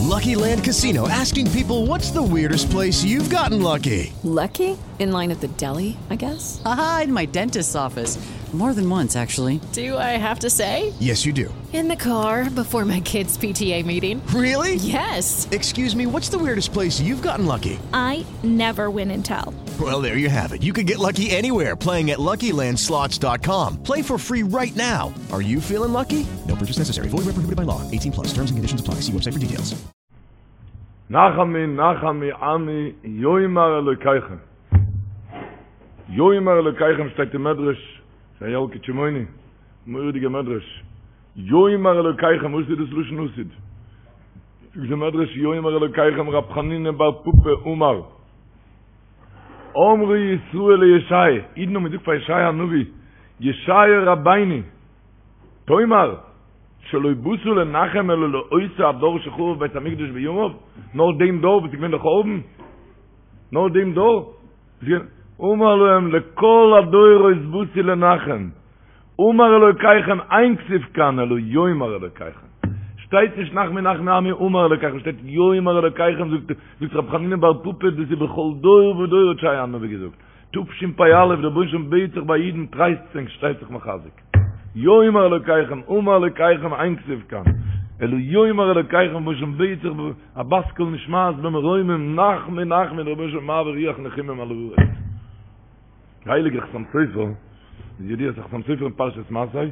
Lucky Land Casino asking people what's the weirdest place you've gotten lucky? Lucky? In line at the deli, I guess? Aha, in my dentist's office. More than once, actually. Do I have to say? Yes, you do. In the car before my kids' PTA meeting. Really? Yes. Excuse me, what's the weirdest place you've gotten lucky? I never win and tell. Well, there you have it. You can get lucky anywhere playing at LuckyLandSlots.com. Play for free right now. Are you feeling lucky? No purchase necessary. Void where prohibited by law. 18 plus. Terms and conditions apply. See website for details. נחמו נחמו עמי יאמר אלוקיכם. יאמר אלוקיכם שטייט אין מדרש, ס'איז א ילקוט שמעוני, מורא'דיגע מדרש. יאמר אלוקיכם, וואס איז דאס לשון עתיד? זאגט די מדרש יאמר אלוקיכם רב חנינא בר פפא אמר אמרו ישראל לישעי', אידן האבן געזאגט פאר ישעיה הנביא, ישעיה רבינו, תאמר, שלא באת לנחם אלא לאותו הדור שחרב בית המקדש בימיו, נאר דעם דור וואס איז געווען די חורבן, נאר דעם דור, אמר להם לכל הדורות באתי לנחם, אמר אלוקיכם אין כתיב כאן אלא יאמר אלוקיכם, שטייט נישט נחמו נחמו עמי אמר אלוקיכם, שטייט יאמר אלוקיכם, זאגט רבי חנינא בר פפא דאס איז בכל דור ודור האט ישעיה הנביא געזאגט, תשפ"א דער רבונו של עולם בעט זיך ביי אידן טרייסט ענק שטייט זיך מחזק, יאמר אלוקיכם אמר אלוקיכם אין כתיב כאן אלא יאמר אלוקיכם רבונו של עולם בעט זיך א בת קול נשמעת במרומים נחמו נחמו דער רבונו של עולם מעביר רוח נחומים על הארץ. דער הייליגער חתם סופר, איז ידוע אז חתם סופר אין פרשת מסעי,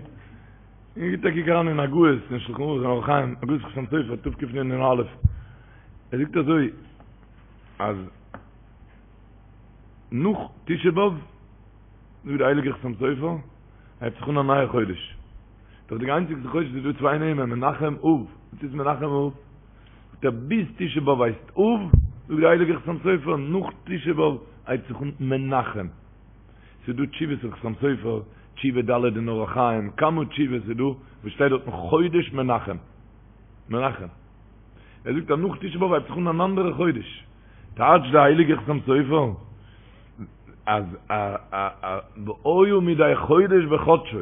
און גיט א קוק אריין אין הגהות אין שלחן ערוך אין אורח חיים, הגהות חתם סופר תקנ"א, ער זאגט אזוי אז נאך תשעה באב, זאגט דער הייליגער חתם סופר, הייבט זיך אן א נייע חודש, דאך די איינציגסטע חודש איז דא צוויי נעמען, מנחם אב, וואס איז מנחם אב? זאגט ער ביז תשעה באב הייסט אב, זאגט דער הייליגער חתם סופר, נאך תשעה באב הייבט זיך אן מנחם. ס'איז דא תשובות אין חתם סופר, תשובה ד' אין אורח חיים, כמה תשובות איז דא וואס שטייט דארטן חודש מנחם. מנחם. ער זאגט אז נאך תשעה באב הייבט זיך אן אן אנדערע חודש. טייטשט דער הייליגער חתם סופר אז א א א והיה מדי חודש בחדשו.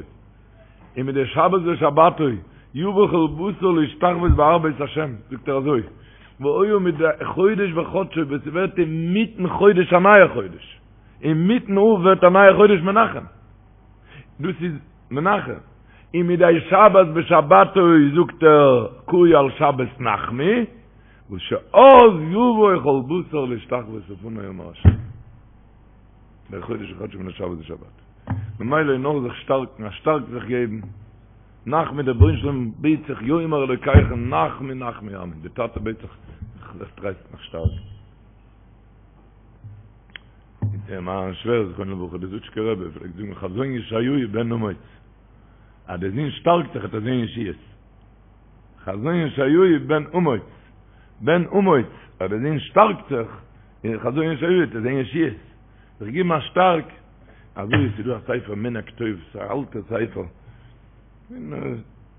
און מדי שבת בשבתו יבא כל בשר להשתחוות בהר בית השם, זאגט ער אזוי, והיה מדי חודש בחדשו ווען ס'ווערט אינמיטן חודש א נייע חודש, אינמיטן אב ווערט א נייע חודש מנחם, דאס איז מנחם, און מדי שבת בשבתו זאגט ער קאי על שבת נחמו, וואס שאז יבוא כל בשר להשתחוות לפני אמר השם. מדי חודש בחדשו מדי שבת בשבתו. ממילא איז נאר זיך שטארקן, א שטארק זיך געבן, נחמו דער רבונו של עולם בעט זיך יאמר אלוקיכם נחמו נחמו עמי, די טאטע בעט זיך זיך טרייסטן זיך שטארקן. מיין שווער זכרונו לברכה דער זוטשקער רבי פלעגט זאגן חזון ישעיהו בן אמוץ, אז דער זון שטארקט זיך וועט ער זען ישועות. חזון ישעיהו בן אמוץ, בן אמוץ, אז דער זון שטארקט זיך, אין חזון ישעיהו וועט ער זען ישועות. זיך געבן א שטארק, אזוי איז ס'דא א ספר מנהג טוב, ס'איז א אלטע ספר, און ער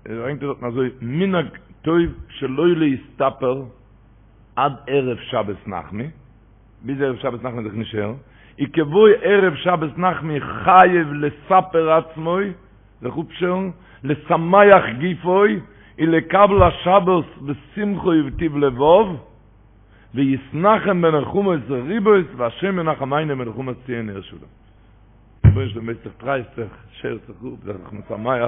ברענגט דארטן אזוי, מנהג טוב שלא להסתפר עד ערב שבת נחמו, ביז ערב שבת נחמו זיך נישט שערן, וכבוא ערב שבת נחמו חייב לספר עצמו, זיך אפשערן, לשמח גופו, ולקבל השבת בשמחה ובטוב לבב, ויתנחם בנחמות רבות והשם ינחמנו בנחמת ציון עיר שלום. רבונו של עולם בעט זיך טרייסט זיך, שער זיך אפ, זיי זיך משמח.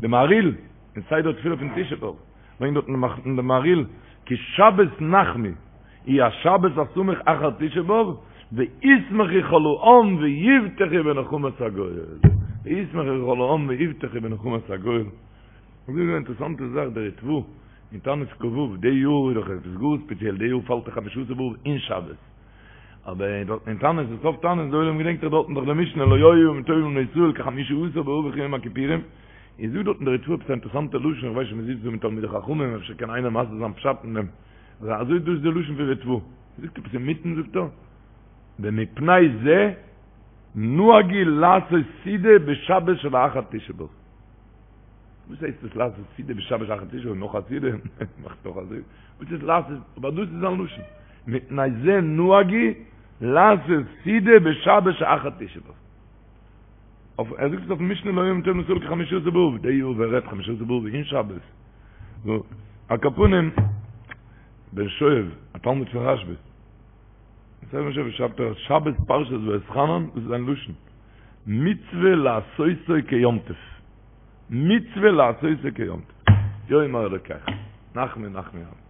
די מהריל, אין סדר תפילה פון תשעה באב, ברענגט דארט די מהריל, כי שבת נחמו היא השבת הסמוך אחר תשעה באב, וישמחו כל העם ויבטחו בנחמת הגואל. וישמחו כל העם ויבטחו בנחמת הגואל. און דא איז א אינטערעסאנטע זאך, דער ריטבא אין תענית כ"ו, די יאר איז דאך עפעס גאר ספעציעל, די יאר פאלט דאך חמשה עשר באב אין שבת, אבער דארט אין תענית, אין סוף תענית, די עולם געדענקט דאך דארטן דאך די משנה לא היו ימים טובים לישראל כחמשה עשר באב וכיום הכיפורים, איז דא דארטן דער ריטבא עפעס א אינטערעסאנטע לשון, איך ווייס נישט מ'זיצט דא מיט תלמידי חכמים אפשר קען איינער מסביר זיין פשט אין דעם, אזוי דאס איז די לשון פון ריטבא, זאגט עפעס אינמיטן זאגט ער, ומפני זה נהגו לעשות סעודה בשבת שלאחר תשעה באב. וואס הייסט דאס לעשות סעודה בשבת אחר תשעה באב נאך א סעודה? מאכט נאך א סעודה? וואס איז לעשות? אבער דאס איז זיין לשון. מפני זה נהגו לעשות סעודה בשבת שאחר תשעה באב. אויף ער זאגט עס אויפן משנה לא היו ימים טובים לישראל כחמשה עשר באב, די יאר ווער רעדט חמשה עשר באב אין שבת. נו, על כל פנים. בן שואב, א תלמיד פון רשב"א. יוסף בן שואב שרייבט ער שבת פרשת ואתחנן, דאס איז זיין לשון, מצוה לעשותו כיום טוב. מצוה לעשותו כיום טוב. יאמר אלוקיך, נחמו נחמו עמי.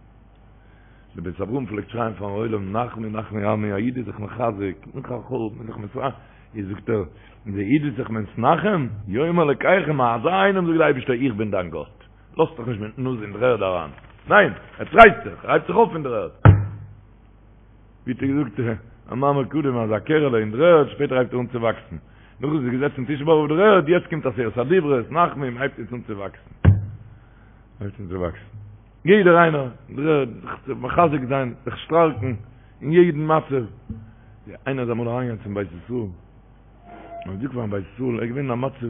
דער בית אברהם פלעגט שרייען פארן עולם נחמו נחמו עמי, א איד איז זיך מחזק, נאך א חורבן איז זיך מתרחב, איז זאגט ער, דער איד איז זיך מתנחם, יאמר אלוקיכם, אזא איינעם זאגט דער אייבערשטער איך בין דיין גאט, לאזט זיך נישט מיטן נאז אין דר'ערד אריין, ניין, ער טרייסט זיך, ער הייבט זיך אויף פון דר'ערד. ווי האט ער געזאגט א מאמר קודם אז א קערעלע אין דר'ערד, שפעטער הייבט ער אן צו וואקסן, נאך איז ער געזעצן תשעה באב אויף דר'ערד, יעצט קומט עשרת הדיברות, נחמו, הייבט יעצט אן צו וואקסן. הייבט אן צו וואקסן. יעדער איינער, זיך צו מחזק זיין, זיך שטארקן אין יעדן מצב. איינער איז אמאל אריינגעגאנגען צום בית ישראל, און געזאגט פארן בית ישראל, ער איז געווען אין א מצב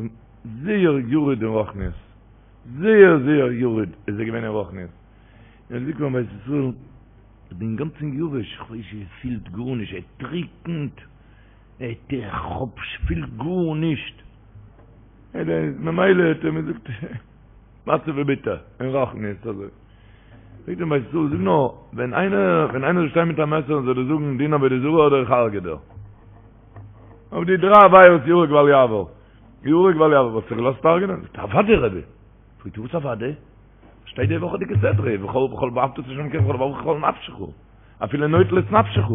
זייער ירוד אין רוחניות, זייער זייער ירוד איז ער געווען אין רוחניות, און ער האט געזאגט פארן בית ישראל, איך בין אינגאנצן יבש, איך ווייס נישט, עס פילט גארנישט, ער טריקנט, איך האב, פיל גארנישט, ממילא האט ער מיר געזאגט, מצב איז ביטער, אין רוחניות אזוי. זאגט אים בית ישראל, זאג נאר, ווען איינער, ווען איינער זאל שטיין מיט א מעסער און זאל דיר זאגן דין עבודה זרה אדער איך הרג'ע דיר. אויף די דריי עבירות יהרג ואל יעבור. יהרג ואל יעבור, וואלסטו זיך געלאזט הרג'נען? זאגט ער, אוודאי רבי. פרעגט ער, וואס אוודאי? שטייט די וואכעדיגע סדרה, ובכל בכל ואהבת את ה' אלקיך בכל לבבך ובכל נפשך. אפילו נוטל את נפשך.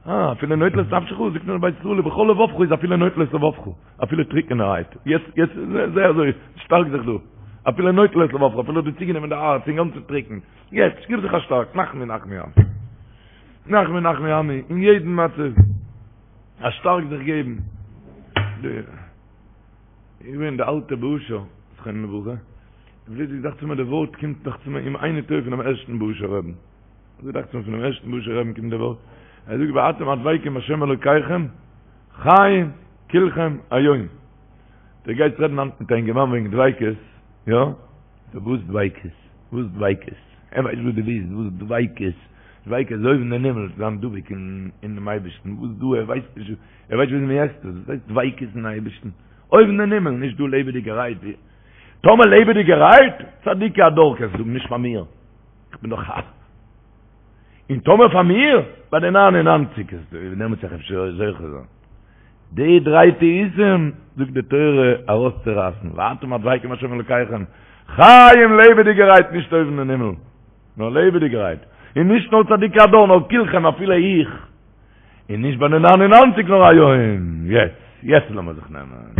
אה, אפילו נוטל את נפשך, זאגט אים בית ישראל, ובכל לבבך איז אפילו נוטל את לבבך, אפילו טריקענערהייט, יעצט, יעצט, זיי אזוי, שטארק זיך דא, אפילו נוטל את לבבך, אפילו האט דיר צוגענומען די הארץ, אינגאנצן טריקן, יעצט, גיב זיך א שטארק, נחמו נחמו עמי. נחמו נחמו עמי, אין יעדן מצב, א שטארק זיך געבן. די, איך בין די אלטע בושה, זכרונו לברכה, פלוצלינג דאכט זיך מיר די ווארט קומט דאכט זיך מיר אם איני טועה פונעם ערשטן בוהושער רבי'ן. אזוי דאכט זיך מיר פונעם ערשטן בוהושער רבי'ן קומט די ווארט, ער זאגט ואתם הדבקים בהשם אלוקיכם חיים כולכם היום. דו גייסט רעדן היינט מיט א אינגערמאן וועגן דביקות, יא? וואס דביקות? וואס דביקות? ער ווייסט וואס דו ווילסט, וואס דביקות? דביקות איז אויבן אין הימל, זיין דבוק אינעם אייבערשטן, וואס דא? ער ווייסט נישט, ער ווייסט נישט ווי מען עסט עס, וואס הייסט דביקות אין אייבערשטן? אויבן אין הימל, נישט דא לעבעדיגערהייט. טאמער לעבעדיגערהייט, צדיקי הדור קענסטו זאגן, נישט פאר מיר. איך בין דאך א. און טאמער פאר מיר, ביי די ניין און ניינציג איז דעמאלטס וועל איך אפשר זוכה זיין. די דריי טעותים זאגט די תורה ארויסצורייסן, ואתם הדבקים בהשם אלוקיכם, חיים לעבעדיגערהייט נישט אויבן אין הימל, נאר לעבעדיגערהייט, און נישט נאר צדיקי הדור נאר כולכם אפילו איך, און נישט ביי די ניין און ניינציג נאר היום, יעצט, יעצט לאמיר זיך נעמען.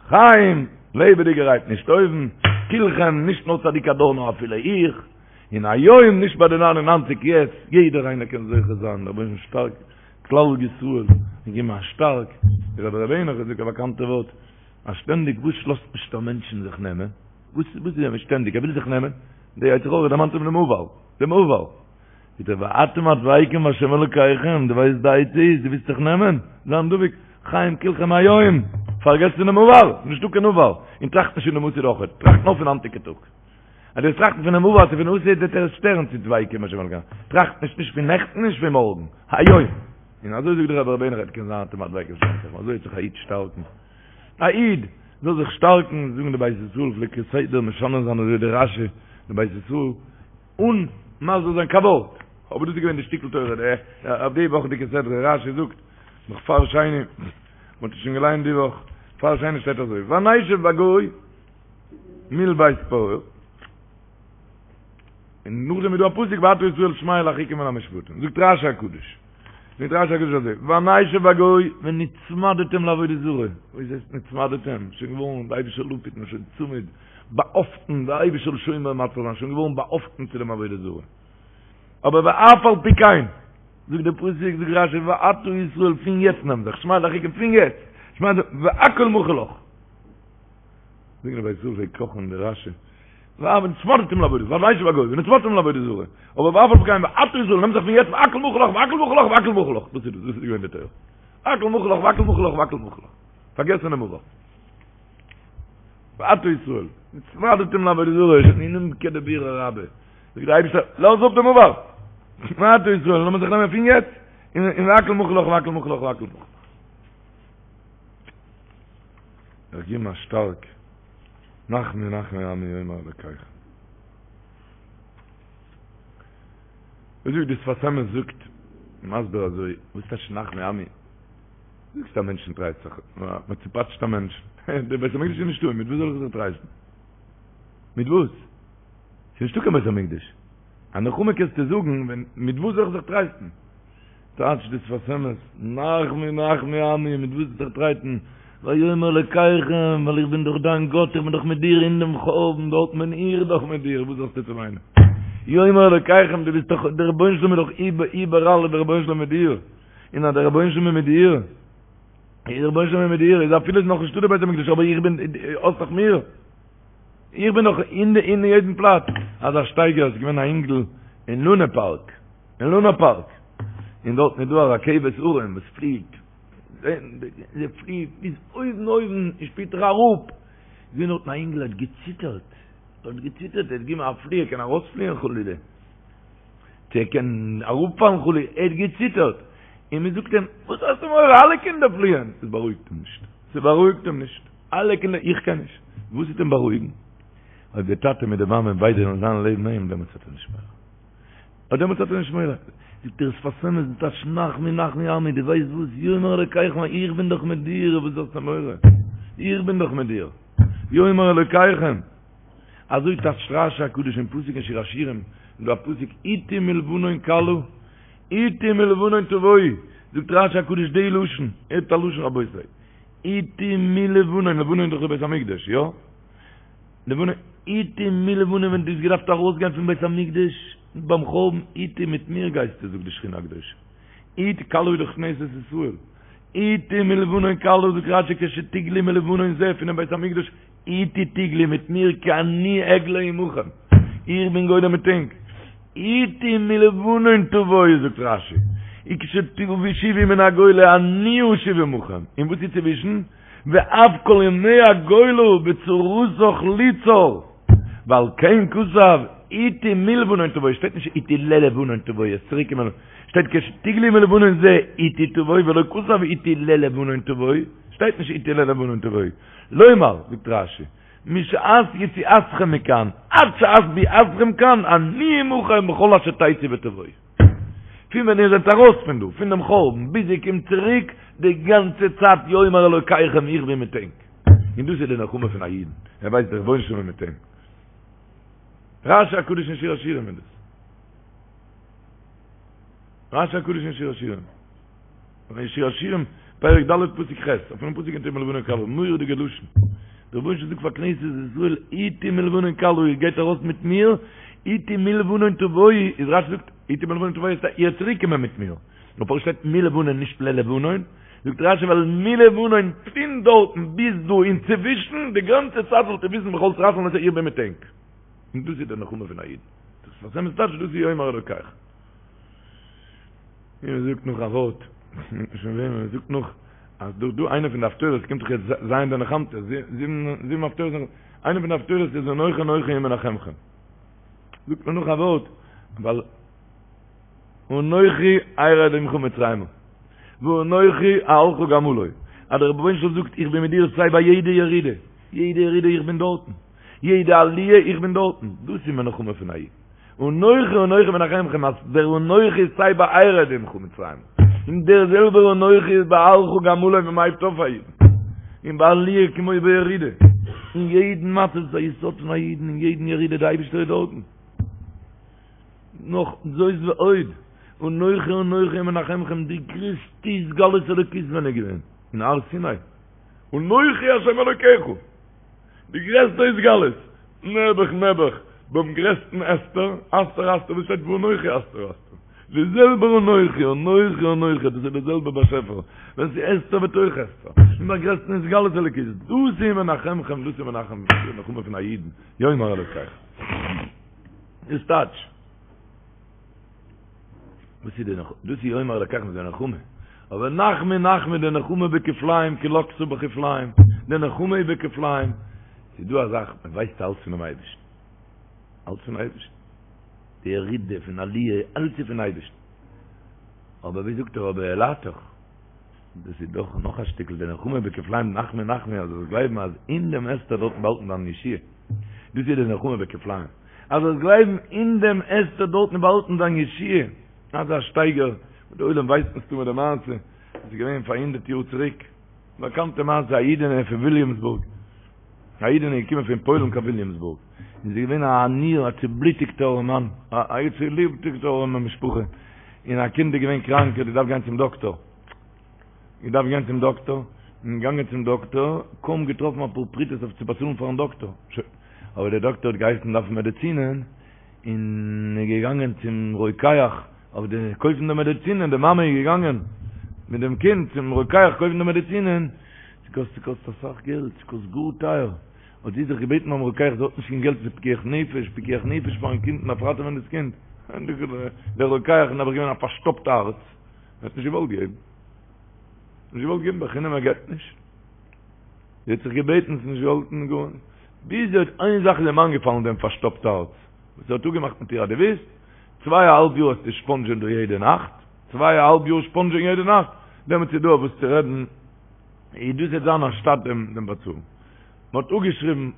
חיים, לעבעדיגערהייט נישט אויבן, כולכם, נישט נאר צדיק הדור נאר אפילו איך, און היום נישט ביי די ניין און ניינציג יעצט, יעדער איינער קען זוכה זיין, דער רבונו של עולם שטארק כלל ישראל, און געבן א שטארק, דער רבי ר' העניך זאגט א באקאנטע ווארט, אז שטענדיג וואס לאזט נישט א מענטשן זיך נעמען, וואס וואס איז שטענדיג ער וויל זיך נעמען, די יצר הרע דערמאנט אים דעם עבר, דעם עבר. זאגט ער ואתם הדבקים בהשם אלוקיכם, דו ווייסט די עצה איז, דו ווילסט זיך נעמען, זיין דבוק, חיים כולכם היום, פארגעס פונעם עבר, נישטא קיין עבר, און טראכט נישט פונעם עתיד אויכעט, טראכט נאר פון היינטיגע טאג. אז דו וועסט טראכטן פונעם עבר צו פון עתיד וועט דיר עס שטערן צו דבקים בהשם אלוקיכם, טראכט נישט נישט פון נעכטן נישט פון מארגן, היום. און אזוי זאגט דער רבי ר' העניך קען זיין אתם הדבקים בהשם אלוקיכם, אזוי וועט זיך א איד שטארקן. א איד זאל זיך שטארקן, זאגן די בית ישראל פלעגט כסדר משנה זיין אזוי די רשי, די בית ישראל, אן מסביר זיין קיין ווארט, אבער דאס איז געווען די שטיקל תורה די אויף די וואכעדיגע סדרה, רשי זאגט נאך פאר שני, מען האט עס שוין געליינט די וואך, פאר שני שטייט אזוי, ונשב בגיא מול בית פעור, און נאכדעם איז דא א פסוק ועתה ישראל שמע אל החוקים ואל המשפטים, זאגט רשי הקדוש, זאגט רשי הקדוש אזוי, ונשב בגיא ונצמדתם לעבודה זרה, וואס הייסט נצמדתם? שוין געווארן די אייבישטער זאל אפהיטן שוין צמוד, באהאפטן, די אייבישטער זאל שומר ומציל זיין, שוין געווארן באהאפטן צו דעם עבודה זרה. אבער ואף על פי כן, זאגט דער פסוק, זאגט רשי, ועתה ישראל פון יעצט נעם זיך, שמע אל החוקים פון יעצט, שמע אל, והכל מחול לך. זאגן די בית ישראל פלעגט קאכן די רשי, ונצמדתם לעבודה זרה, ונשב בגיא, ונצמדתם לעבודה זרה, אבער ואף על פי כן, ועתה ישראל נעם זיך פון יעצט, והכל מחול לך, והכל מחול לך, והכל מחול לך. דאס איז דאס, דאס איז געווען די תורה. הכל מחול לך, והכל מחול לך, והכל מחול לך. פארגעס פונעם עבר. ועתה ישראל, נצמדתם לעבודה זרה, שוין כדבירא רבה. זאגט דער אייבערשטער, לאז אפ דעם עבר. ועתה ישראל, לאמיר זיך נעמען פון יעצט, און והכל מחול לך, והכל מחול לך, והכל מחול לך. זיך געבן א שטארק, נחמו נחמו עמי יאמר אלקיכם. וואס זאגט די שפת אמת זאגט מסביר אזוי, וואס טייטש נחמו עמי? זאגסט א מענטשן טרייסט זיך, מען צופאטשט א מענטש, דער בית המקדש איז נישטא, מיט וואס זאל איך זיך טרייסטן? מיט וואס? ס'איז נישטא קיין בית המקדש. א נחמה קענסטו זאגן, ווען, מיט וואס זאל איך זיך טרייסטן? טייטשט די שפת אמת, נחמו נחמו עמי, מיט וואס זיך טרייסטן? ויאמר אלקיכם, ווייל איך בין דאך דיין גאט, איך בין דאך מיט דיר אין דעם חורבן, דארט בין איך דאך מיט דיר, וואס האסטו צו וויינען? יאמר אלקיכם, דו ביסט דאך, דער רבונו של עולם איז דאך איבעראל איז דער רבונו של עולם מיט דיר, און אז דער רבונו של עולם איז מיט דיר, איז דער רבונו של עולם מיט דיר, איז אפילו איז נאך נישטא דער בית המקדש, אבער איך בין, האסט דאך מיר, איך בין דאך אין אין יעדן פלאץ. אזא שטייגער, עס איז געווען א אינגל אין לונה פארק, אין לונה פארק, און דארטן איז דא א רכבת הרים וואס פליעט, זי פליעט ביז אויבן אויבן און שפעטער אראפ, איז געווען דארטן א אינגל האט געציטערט, האט געציטערט, ער האט געגעבן א פלי, ער קען ארויספליען חלילה, צו ער קען אראפפאלן חלילה, ער האט געציטערט, און מען זאגט אים, וואס האסטו מורא, אלע קינדער פליען, עס בארואיגט אים נישט, ס'בארואיגט אים נישט, אלע קינדער, איך קען נישט, וואס וועט אים בארואיגן? אויב די טאטע מיט די מאמע ביידע וועלן זיין לעבן אים, דעמאלטס האט ער נישט מורא. אט דעמאלטס האט ער נישט מורא. זאגט דער שפת אמת די טייטש נחמו נחמו עמי, דו ווייסט וואס, יאמר אלוקיכם איך בין דאך מיט דיר, וואס האסטו מורא? איך בין דאך מיט דיר. יאמר אלוקיכם. אזוי טייטשט רשי הקדוש אין פסוק אין שיר השירים, איז דא א פסוק אתי מלבנון כלה, אתי מלבנון תבואי, זאגט רשי הקדוש די לשון, הערט א לשון רבותי, אתי מלבנון, לבנון איז דאך די בית המקדש, יא? לבנון, אתי מלבנון ווען דו האסט געדארפט ארויסגיין פון בית המקדש ביים חורבן, אתי מיט מיר גייסטו זאגט די שכינה הקדושה, אתי כלה איז דאך כנסת ישראל, אתי מלבנון כלה זאגט רשי כשתגלי מלבנון זה פונעם בית המקדש, אתי תגלי מיט מיר כי אני אגלה עמכם, איך בין גולה מיט ענק, אתי מלבנון תבואי זאגט רשי, וכשתשובו מן הגולה אני אשוב עמכם, און וואס איז צווישן? ואף כל ימי הגולה בצרתך לי צר, ועל כן כתב אתי מלבנון תבואי, שטייט נישט אתי ללבנון תבואי, עס צוריק קומען, שטייט כשתגלי מלבנון זה אתי תבואי ולא כתב אתי ללבנון תבואי, שטייט נישט אתי ללבנון תבואי, לומר, זאגט רשי, משעת יציאתכם מכאן עד שעת ביאתכם כאן אני עמכם בכל אשר תצאו ותבואו. פון ווען איר זענט ארויס פון דא, פון דעם חורבן, ביז איר קומט צוריק, די גאנצע צייט יאמר אלוקיכם איך בין מיט ענק. און דאס איז די נחמה פון א אידן, ער ווייסט דער רבונו של עולם איז מיט אים. רשי הקדוש אין שיר השירים איז דאס. רשי הקדוש אין שיר השירים. אין שיר השירים, פרק ד' פסוק ח', אויפן פסוק אתי מלבנון כלה, מורא'דיגע לשון. דער רבונו של עולם זאגט פאר כנסת ישראל, אתי מלבנון כלה, איר גייט ארויס מיט מיר, אתי מלבנון תבואי, איז רשי זאגט, אתי מלבנון תבואי, איז איר צוריק קומען מיט מיר. נאר פארוואס שטייט מלבנון נישט ללבנון? זאגט רשי ווייל מלבנון פון דארטן ביז דא אינצווישן, די גאנצע צייט זאלט איר וויסן בכל צרתכם אז איך בין מיט ענק. און דאס איז די נחמה פון א איד. דאס איז וואס טייטש דאס איז יאמר אלוקיכם. און מען זאגט נאך א ווארט, שוין ווען מען זאגט נאך, אז דא דא איינע פון די הפטורות קומט דאך יעצט ז' דנחמתא, זיבן הפטורות, איינע פון די הפטורות איז אנכי אנכי הוא מנחמכם. זאגט מען נאך א ווארט, ווייל אנכי ארד עמך מצרימה, ואנכי אעלך גם עלה, אז דער רבונו של עולם זאגט איך בין מיט דיר סיי ביי יעדע ירידה, יעדע ירידה איך בין דארטן, יעדע עליה איך בין דארטן, דאס איז מנחמה פון א איד. אנכי אנכי מנחמכם אז דער אנכי איז סיי ביי ארד עמך מצרימה, און דער זעלבער אנכי איז ביי אעלך גם עלה ווען מ'הייבט אויף א אידן, און ביי עליה כמו בירידה, אין יעדן מצב איז א יסוד פון א אידן, אין יעדן ירידה די אייבישטער איז דארטן. נאך זאת ועוד, אנכי אנכי מנחמכם די גרעסטע התגלות אלוקית ווען איז געווען? אין הר סיני, אנכי השם אלוקיך! די גרעסטע התגלות, נעבעך נעבעך, ביים גרעסטן הסתר, הסתר אסתיר, וואס שטייט ואנכי הסתר אסתיר, די זעלבער אנכי, אנכי אנכי, דאס איז דער זעלבער באשעפער, ווען ס'איז הסתר בתוך הסתר, און ביים גרעסטן התגלות אלוקית, דאס איז מנחמכם, דאס איז מנחם, די נחמה פון א אידן, יאמר אלוקיכם. איז טייטש. וואס איז די נחמה? דאס איז יאמר אלקיכם איז די נחמה. אבער נחמו נחמו די נחמה בכפליים כי לקתה בכפליים, די נחמה איז בכפליים. ס'איז דא א זאך, מען ווייסט אלץ פונעם אייבערשטן. אלץ פון אייבערשטן. די ירידה פון עליה, אלץ איז פון אייבערשטן. אבער ווי זאגט ער אבער העלתך, דאס איז דאך נאך א שטיקל די נחמה בכפליים נחמו נחמו אז זאלסט גלייבן אז אין דעם הסתר דארטן באהאלטן דיין ישועה. דאס איז די נחמה בכפליים. אז זאלסט גלייבן אין דעם הסתר דארטן איז באהאלטן דיין ישועה, אזא שטייגער וואס די עולם ווייסט מסתמא די מעשה, עס איז געווען פאר הונדרעט יאר צוריק, באקאנטע מעשה א אידענע פון וויליאמסבורג, א אידענע איז געקומען פון פוילן קיין וויליאמסבורג, און זי איז געווען א עניה, א צובלוטיגטע ארעמאן, א צובלוטיגטע ארעמע משפחה, און א קינד איז געווען קראנק, האט געדארפט גיין צום דאקטאר, געדארפט גיין צום דאקטאר, און געגאנגען צום דאקטאר, קוים געטראפן אפאר פרוטות אויף צו באצאלן פארן דאקטאר, שוין, אבער דער דאקטאר האט געהייסן דארפן מעדעצינען, און איז געגאנגען צום רוקח אויף די קויפן די מעדעצינען, די מאמע איז געגאנגען מיט דעם קינד צום רוקח קויפן די מעדעצינען, ס'קאסט ס'קאסט אסאך געלט, ס'קאסט גאר טייער, האט זי זיך געבעטן ביים רוקח זי האט נישט קיין געלט ס'איז פיקוח נפש, פיקוח נפש פארן קינד מ'דארף ראטעווען דאס קינד, דער רוקח איז נעבעך געווען א פארשטאפט הארץ, ער האט נישט געוואלט געבן, נישט געוואלט געבן בחינם ער געבט נישט. זי האט זיך געבעטן, ס'איז נישט געהאלפן גארנישט. ביז זי האט איין זאך איז אים איינגעפאלן דעם פארשטאפט הארץ, וואס ער האט אפגעמאכט מיט איר אז דו ווילסט, צוויי א האלב יאר וועסטו ספאנדזשען דא יעדע נאכט, צוויי א האלב יאר ספאנדזשען יעדע נאכט, דעמאלטס איז דא אויף וואס צו רעדן, איז דאס וועט זיין אנשטאט דעם דעם באצאלן. מען האט אפגעשריבן,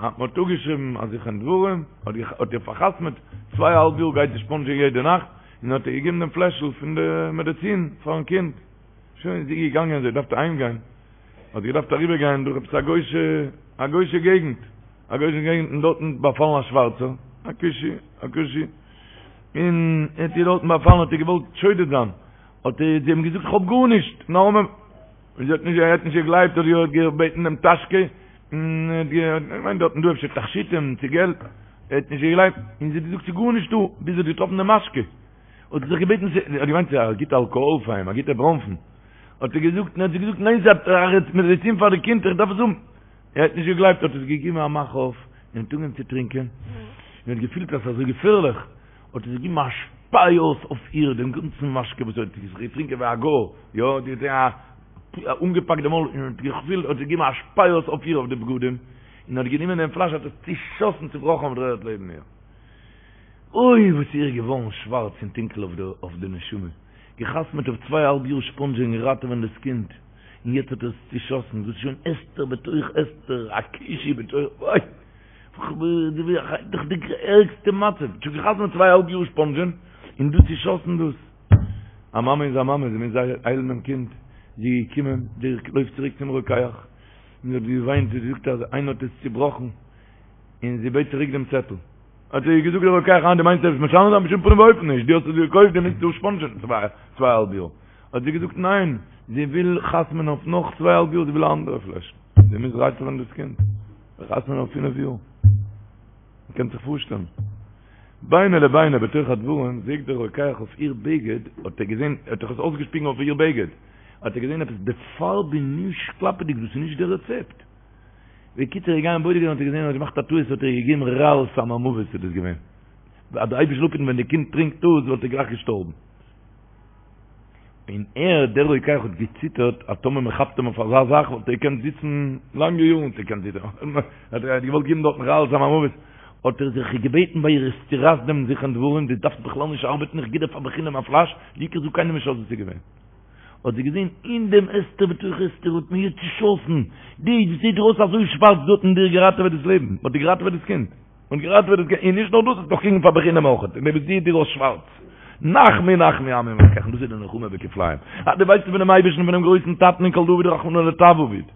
מען האט אפגעשריבן א זיכרון דברים, האט איר פארחתמעט, צוויי א האלב יאר גייט זי ספאנדזשען יעדע נאכט, און האט איר געגעבן דעם פלעשל פון די מעדעצין פארן קינד. שוין איז זי געגאנגען, זי האט געדארפט אהיימגיין. האט זי געדארפט אריבער גיין דורך עפעס א גוישע א גוישע געגנט, א גוישע געגנט און דארטן באפאלן א שווארצער, א כושי, א כושי, און ער האט איר דארטן באפאלן האט איר געוואלט שודד זיין, האט ער זי אים געזאגט איך האב גארנישט, נאר און זי האט נישט ער האט נישט געגלייבט האט זי געבעטן דעם טאשקע, און ער האט געמיינט דארטן דא אפשר תכשיטים צו געלט, ער האט נישט געגלייבט, און זי האט געזאגט ס'איז גארנישט דא, ביז זי האט געטראפן די משקה. האט זי זיך געבעטן, זי האט געמיינט ס'איז א גוטע אלקאהאל פאר אים, א גוטע בראנפן, האט ער געזאגט, האט זי געזאגט, ניין ס'איז א מעדיצין פאר די קינד, איך דארף עס האבן. ער האט נישט געגלייבט, האט עס געגעבן א מאך אויף, און האט אנגעהויבן צו טרינקען, און האט געפילט אז ס'איז אזוי געפערליך, האט ער געגעבן א שפיי אויס אויף איר דעם גאנצן משקה וואס ער האט זיך געטרינקען ווי א גוי, יא, די האט אנגעפאקט די מויל, און האט געפילט, האט געגעבן א שפיי אויס אויף איר אויף די בגדים, און האט גענומען דעם פלאש האט עס צושאסן צובראכן אויף דער ערד לעבן איר. אוי וואס איז איר געווארן שווארץ און טונקל אויף די נשמה, געחתמעט אויף צוויי אהאלב יאר ספאנדזשען און ראטעווען דאס קינד, און יעצט האט ער עס צושאסן, דאס איז שוין הסתר בתוך הסתר, א כושי בתוך, אוי! דאך די ערגסטע מצב, שוין געחתמעט צוויי אהאלב יאר ספאנדזשען, און דא צושאסן דאס. א מאמע איז א מאמע, זי מוז היילן דעם קינד, זי איז געקומען, זי לויפט צוריק צום רוקח, און זי האט געוויינט, זי האט געזאגט אז איינער האט עס צובראכן, און זי בעט צוריק דעם צעטל. האט איר געזאגט דער רוקח אה דו מיינסט עפעס משנה זיין בשום פנים ואופן נישט, דו האסט עס געקויפט דו מוזט דא ספאנדזשען צוויי צוויי אהאלב יאר. האט זי געזאגט ניין, זי וויל חתמ'ן אויף נאך צוויי אהאלב יאר, זי וויל א אנדערע פלעשל, זי מוז ראטעווען דאס קינד, חתמ'ן אויף פינף יאר. מען קען זיך פארשטעלן. ביני לביני בתוך הדברים זעט דער רוקח אויף איר בגד, האט ער געזען, ער האט דאך עס אויסגעשפיגן אויף איר בגד, האט ער געזען עפעס די פארב איז נישט קלאפעדיג, דאס איז נישט די רעצעפט. בקיצור איז געגאנגען בודק זיין האט ער געזען ער האט געמאכט א טעות האט ער איר געגעבן רעל סם המוות איז דאס געווען אז דער אייבערשטער זאל אפהיטן ווען די קינד טרינקט דאס וואלט ער גלייך געשטארבן און ער דער רוקח האט געציטערט אז טאמער מען כאפט אים אויף אזא זאך וואלט ער געקענט זיצן לאנגע יארן וואלט ער געקענט זיצן האט ער געוואלט געבן דארטן רעל סם המוות האט ער זיך געבעטן ביי איר צורייס דעם זכרון דברים דו דארפסט בכלל נישט ארבעטן איך גיב דיר פאר בחינם א פלאש די עיקר זאג קיינעם נישט אז עס איז געווען האט זי געזען אין דעם הסתר בתוך הסתר האט מען איר צושאסן, די וואס זעט דיר אויס אזוי שווארץ דא האט מען דיר געראטעוועט דאס לעבן, מען האט דיר געראטעוועט דאס קינד, מען האט געראטעוועט דאס קינד, און נישט נאר דאס, האסט נאך קריגן פאר בחינם אויך, און דער וואס זעט דיר אויס שווארץ, נחמו נחמו עמי מברכיכם, דאס איז די נחמה בכפליים, אז דו ווייסט פונעם אייבערשטן פונעם גרויסן טאטן און כל דעביד רחמנא לטב עביד,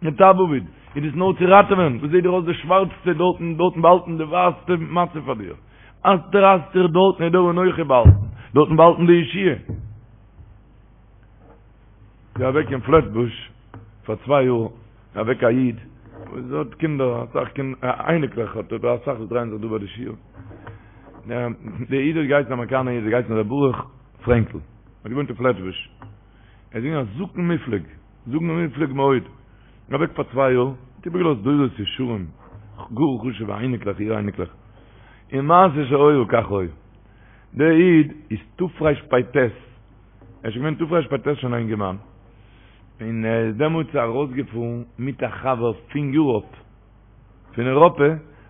לטב עביד, איז דאס נאר צו ראטעווען, וואס זעט דיר אויס די שווארצסטע דארטן, דארטן באהאלטן די ווייסטע מצב פאר דיר, הסתר אסתיר דארטן איז דער אנכי באהאלטן, דארטן באהאלטן די ישועה. איז אוועק אין פלעטבוש פאר צוויי יאר אוועק א איד וואס האט קינדער אסאך קינדער אייניקלעך האט ער אסאך וואס דרייען זיך דא ביי די שיעור דער איד האט געהייסן אמעריקאנער איד האט געהייסן ר' ברוך פרענקל האט געוואוינט אין פלעטבוש ער איז געווען א זקן מופלג זקן מופלג מאוד אוועק פאר צוויי יאר האט איבערגעלאזט דורות ישרים גאר חשובע אייניקלעך אור אייניקלעך און מעשה שהיה כך היה דער איד איז תרפ"ט, ער איז שוין געווען תרפ"ט שוין א אינגערמאן, און ער איז דעמאלטס ארויסגעפארן מיט א חבר פון יוראפ, פון אירופה,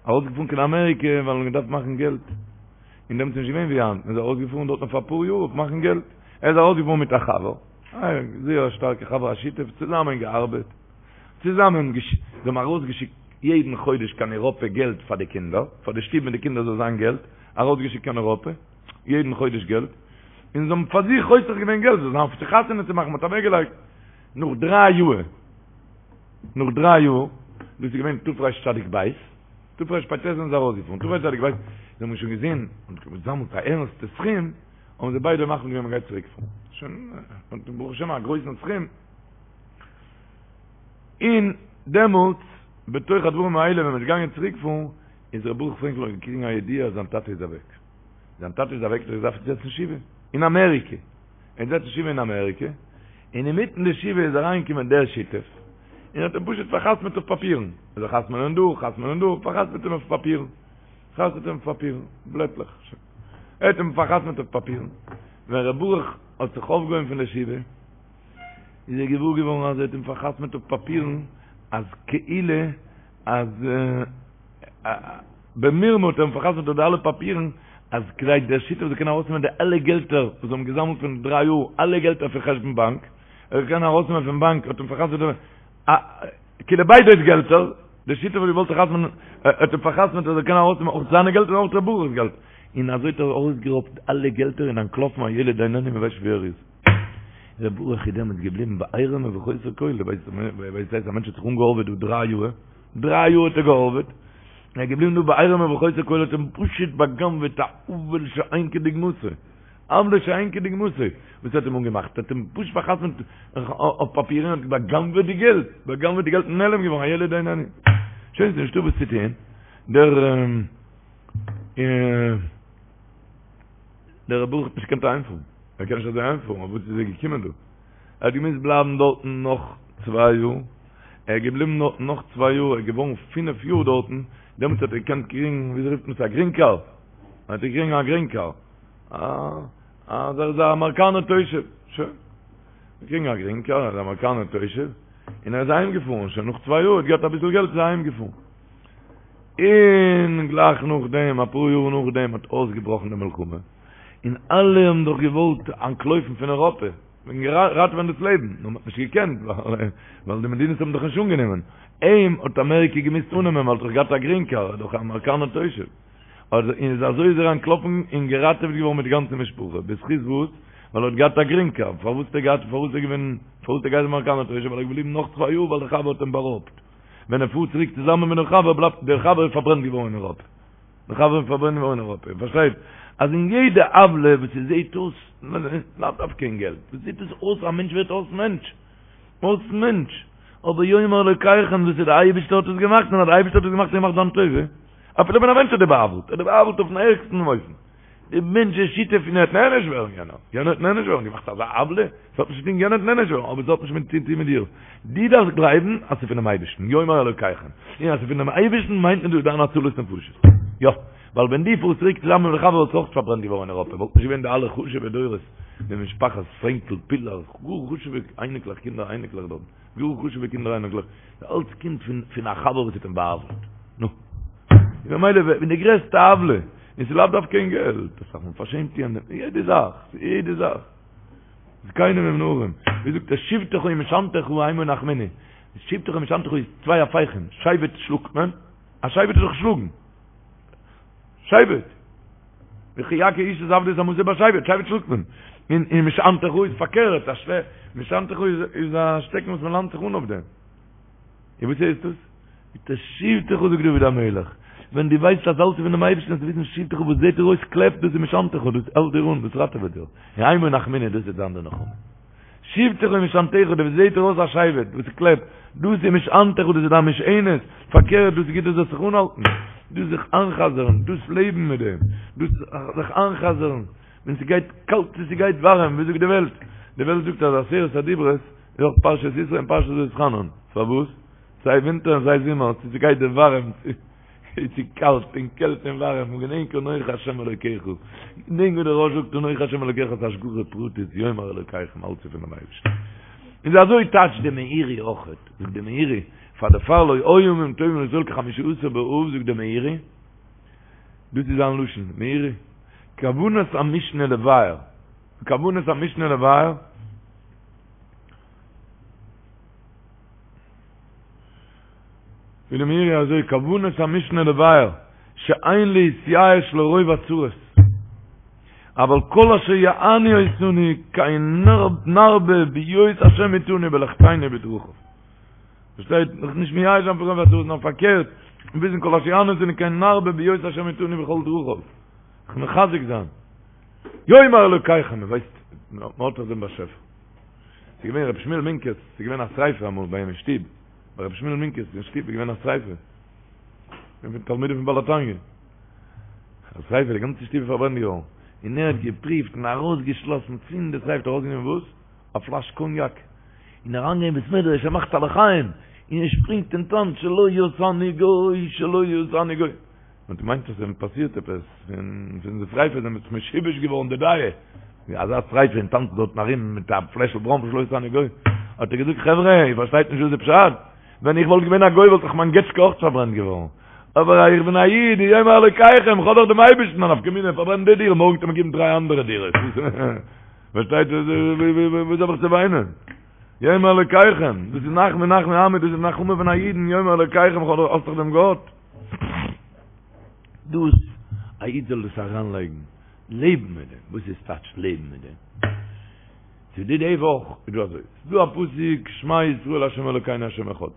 ארויסגעפארן קיין אמעריקע ווייל מען האט געדארפט מאכן געלט, און דעמאלטס איז נישט געווען ווי היינט, מען איז ארויסגעפארן דארט אויף אפאר יאר אויף מאכן געלט, ער איז ארויסגעפארן מיט א חבר, א זייער א שטארקע חבר, א שותף, צוזאמען געארבעט, צוזאמען, זיי האבן ארויסגעשיקט. יעדן חודש קיין אירופע געלט פאר די קינדער, פאר די שטוב מיט די קינדער זאל זיין געלט, ארויסגעשיקט קיין אירופע, יעדן חודש געלט, און זיי האבן פאר זיך חוסך געווען געלט, זאל זיין אויף צו חתונה צו מאכן, מען האט אוועקגעלייגט, נאך דריי יאר, נאך דריי יאר, דאס איז געווען תרצ"ב, תרפ"ט זענען זיי ארויסגעפארן, תרצ"ב, זיי האבן שוין געזען, און געזאמלט א ערנסטע סכום, האבן זיי ביידע מחליט געווען מען גייט צוריק פארן, שוין, ברוך השם א גרויסן סכום, און דעמאלטס, בתוך הדברים האלה ווען מען איז געגאנגען צוריק פארן, איז ר' ברוך פרענקל האט געקריגן א ידיעה אז זיין טאטע איז אוועק. זיין טאטע איז אוועק, ער האט געדארפט זיצן שבעה אין אמעריקע. ער האט געזעצן שבעה אין אמעריקע, און אינמיטן די שבעה איז אריינגעקומען דער שותף, און האט אים פשוט פאר'חתמ'עט אויף פאפירן. ער זאל חתמ'נען דא, חתמ'נען דא, פאר'חתמ'עט אים אויף פאפירן. חתמ'עט אים אויף פאפירן, בלעטלעך. ער האט אים פאר'חתמ'עט אויף פאפירן. ווען ר' ברוך האט זיך אויפגעהויבן פון די שבעה, איז ער געוואר געווארן אז ער האט אים פאר'חתמ'עט אויף פאפירן אז כאילו אז במרמה האט ער אים פאר'חתמ'עט אויף די אלע פאפירן אז כדי דער שותף זאל קענען ארויסנעמען די אלע געלטער וואס זיי האבן געזאמלט פון דריי יאר, אלע געלטער פון חשבון באנק, ער זאל קענען ארויסנעמען פון באנק האט אים פאר'חתמ'עט כאילו ביידע'ס געלטער, דער שותף האט געוואלט חתמ'נען, האט אים פאר'חתמ'עט אז ער זאל קענען ארויסנעמען אויך זיינע געלטער און אויך ר' ברוך'ס געלט, און אזוי האט ער ארויסגערויבט אלע געלטער און אנטלאפן הילד איננו מען ווייסט נישט וואו ער איז. ר' ברוך איז דעמאלטס געבליבן בעירום ובחוסר כל, דו ווייסט וואס הייסט א מענטש האט זיך אנגעהארוועט דא דריי יאר, דריי יאר האט ער געהארוועט, ער איז געבליבן דא בעירום ובחוסר כל, האט אים פשוט בא'גנב'עט א עוול שאין כדוגמתו, עוולה שאין כדוגמתו, וואס האט אים אנגעמאכט, האט אים פשוט פאר'חתמ'ט אויף פאפירן און האט בא'גנב'עט די געלט, בא'גנב'עט די געלט און נעלם געווארן, הילד איננו. שוין ס'איז נישטא וואס צו טוהן, דער דער ר' ברוך האט נישט געקענט אהיימפארן, ער קען נישט אזוי אהיימפארן, אויף וואס איז ער געקומען דא? ער האט געמוזט בלייבן דארטן נאך צוויי יאר, ער איז געבליבן דארטן נאך צוויי יאר, ער איז געווארן פינף יאר דארטן, דעמאלטס האט ער געקענט קריגן, וויאזוי רופט מען עס, א גרין קארד, ער האט געקריגן א גרין קארד, אז ער איז א אמעריקאנער תושב, שוין, געקריגן א גרין קארד, ער איז א אמעריקאנער תושב, און ער איז אהיים געפארן, שוין נאך צוויי יאר, האט געהאט אביסל געלט איז ער אהיים געפארן. און גלייך נאכדעם, אפאר יאר נאכדעם האט אויסגעבראכן די מלחמה, און אלע האבן דאך געוואלט אנטלויפן פון אירופה, וועגן ראטעווען דאס לעבן, נאר מ'האט נישט געקענט, ווייל די מדינות האבן דאך נישט אנגענומען. אים האט אמעריקע געמוזט אננעמען, ווייל ער האט דאך געהאט א גרין קארד, ער איז דאך א אמעריקאנער תושב. און איז אזוי איז ער אנטלאפן און געראטעוועט געווארן מיט די גאנצע משפחה. בזכות וואס? ווייל ער האט געהאט א גרין קארד. פארוואס האט ער געהאט, פארוואס איז ער געווען, פארוואס האט ער געהייסן אמעריקאנער תושב? ווייל ער איז געבליבן נאך צוויי יאר ווייל דער חבר האט אים בארויבט. ווען ער פארט צוריק צוזאמען מיט דעם חבר בלייבט דער חבר איז פארברענט געווארן אין אירופה. דער חבר איז פארברענט געווארן אין אירופה. איר פארשטייט אז אין יעדע עוולה וואס ס'זעהט אויס, לאו דווקא אין געלט, וואס זעהט עס אויס א מענטש ווערט אויס מענטש. אויס מענטש. אבער יאמר אלוקיכם דאס איז דער אייבערשטער האט עס געמאכט און אז דער אייבערשטער האט עס געמאכט איז געמאכט זיין טובה. אפילו ווען א מענטש האט דיר בא'עוול'ט, ער האט דיר בא'עוול'ט אויפן ערגסטן אופן. די מענטש איז שותף און ער וועט נענש ווערן יענער, יענער וועט נענש ווערן, געמאכט אזא עוולה, עס האט נישט צו טון יענער וועט נענש ווערן, אבער עס האט נישט מיט צו טון מיט דיר, דו דארפסט גלייבן אז ס'איז פונעם אייבערשטן, יאמר אלוקיכם, און אז ס'איז פונעם אייבערשטן מיינט מען דא דיין הצלת נפשות, יא, ווייל ווען דו פארסט צוריק צוזאמען מיט די חבר וואלסטו אויך פארברענט געווארן אין אירופה, וואלט נישט געווען די אלע חשוב'ע דורות, די משפחת פרענקל, פילאר, גאר חשוב'ע אייניקלעך, קינדער אייניקלעך דארט. גאר חשוב'ע קינדער אייניקלעך, אלץ קומט פון פון א חבר וואס האט אים בא'עוול'ט. נו. און ממילא ווען די גרעסטע עוולה, און ס'איז לאו דווקא אין געלט, אסאך מאל פארשעמט יענעם, יעדע זאך, יעדע זאך. זקנים עם נערים, ווי זאגט ער, שבטך ומשענתך המה ינחמוני. שבטך ומשענתך איז צוויי הפכים, שבט שלאגט מען, א שבט איז דאך שלאגן. שבט. וכי יכה איש את עבדו את אמתו בשבט, שבט שלאגט מען. און און משענתך איז פארקערט, א שלע, משענתך איז איז א שטעקן וואס מען לאנט זיך אן אויף דעם. און וואס הייסט דאס? מיט א שבטך זאגט דוד המלך, ווען דו ווייסט אז אלץ איז פונעם אייבערשטן זאלסטו וויסן שבטך וואס זעט דיר אויס קלעפ, דאס איז משענתך, דאס האלט דיר אן, דאס ראטעוועט דיר. המה ינחמוני, דאס וועט זיין די נחמה. שבטך ומשענתך, דאס זעט דיר אויס א שבט, וואס קלעפט, דאס איז משענתך, דאס איז דיין משענת, פארקערט, דאס איז גוט דו זאלסט זיך אנהאלטן, דאס זיך איינ'חזר'ן, דאס לעבן מיט דעם, דאס זיך איינ'חזר'ן, ווען ס'גייט קאלט צו ס'גייט ווארעם, ווי זאגט די וועלט? די וועלט זאגט אז עשרת הדיברות איז אויך פרשת יתרו און פרשת ואתחנן, פארוואס? סיי ווינטער און סיי זומער, צו ס'גייט דיר ווארעם צו. צו קאלט און קעלט און ווארעם, און געדענק אנוכי השם אלוקיך, געדענק ווי דער רא"ש זאגט אנוכי השם אלוקיך איז השגחה פרטית יאמר אלוקיכם אלץ איז פונעם אייבערשטן. און אזוי טייטשט די מאירי אויכעט, זאגט די מאירי, פאר דערפאר לא היו ימים טובים לישראל כחמישה עשר באב זאגט די מאירי, דאס איז זיין לשון, מאירי, כוונת המשנה לבאר, כוונת המשנה לבאר,. זאגט די מאירי אזוי, כוונת המשנה לבאר, שאין להתייאש לרוב הצרות, אבל כל אשר יענו אותנו כן נרבה בהיות השם איתנו בלכתנו בדרכיו. פארשטייט? זיך נישט מייאש זיין פון רוב הצרות, נאר פארקערט, וויסן כל אשר יענו אותנו כן נרבה בהיות השם איתנו בכל דרכיו. זיך מחזק זיין. יאמר אלוקיכם, מען ווייסט, מען האט דאך דעם באשעפער. ס'איז געווען רבי שמואל מינקעס, ס'איז געווען א שריפה אמאל ביי אים אין שטוב, ביי רבי שמואל מינקעס אין שטוב איז געווען א שריפה. פון תלמידים פון בעל התניא. א שריפה, די גאנצע שטוב איז פארברענט געווארן. און ער האט געפריווט און ארויסגעשלאסן פון די שריפה, האט ארויסגענומען וואס? א פלאש קאניאק. און אריינגעגאנגען אין בית מדרש, ער מאכט א לחיים, און ער שפרינגט און טאנצט שלא עשני גוי, שלא עשני גוי. מען האט געמיינט אז עס איז אים פאסירט עפעס, פון די שריפה איז אים משובש געווארן די דעה, ווי אזא שריפה און טאנצט דארטן ארום מיט א פלעשל בראנפן שלא עשני גוי, האט ער געזאגט חברה איר פארשטייט נישט וואס איז פשט, ווען איך וואלט געווען א גוי וואלט דאך מיין געטשקע אויך פארברענט געווארן, אבער איך בין א איד, יאמר אלוקיכם, איך האב דאך דעם אייבערשטן, א נפקא מינה, פארברענט די דירה, מארגן וועט מען געבן דריי אנדערע דירות, פארשטייט וואס האב איך צו וויינען? יאמר אלוקיכם, דאס איז נחמו נחמו עמי, דאס איז נחמה פון א אידן, יאמר אלוקיכם, איך האב דאך דעם גאט. דאס, א איד זאל דאס אריינלייגן, לעבן מיט דעם, וואס איז טייטש לעבן מיט דעם? ס'איז דא די וואך איז דא אזוי, ס'איז דא א פסוק שמע ישראל ה' אלוקינו ה' אחד,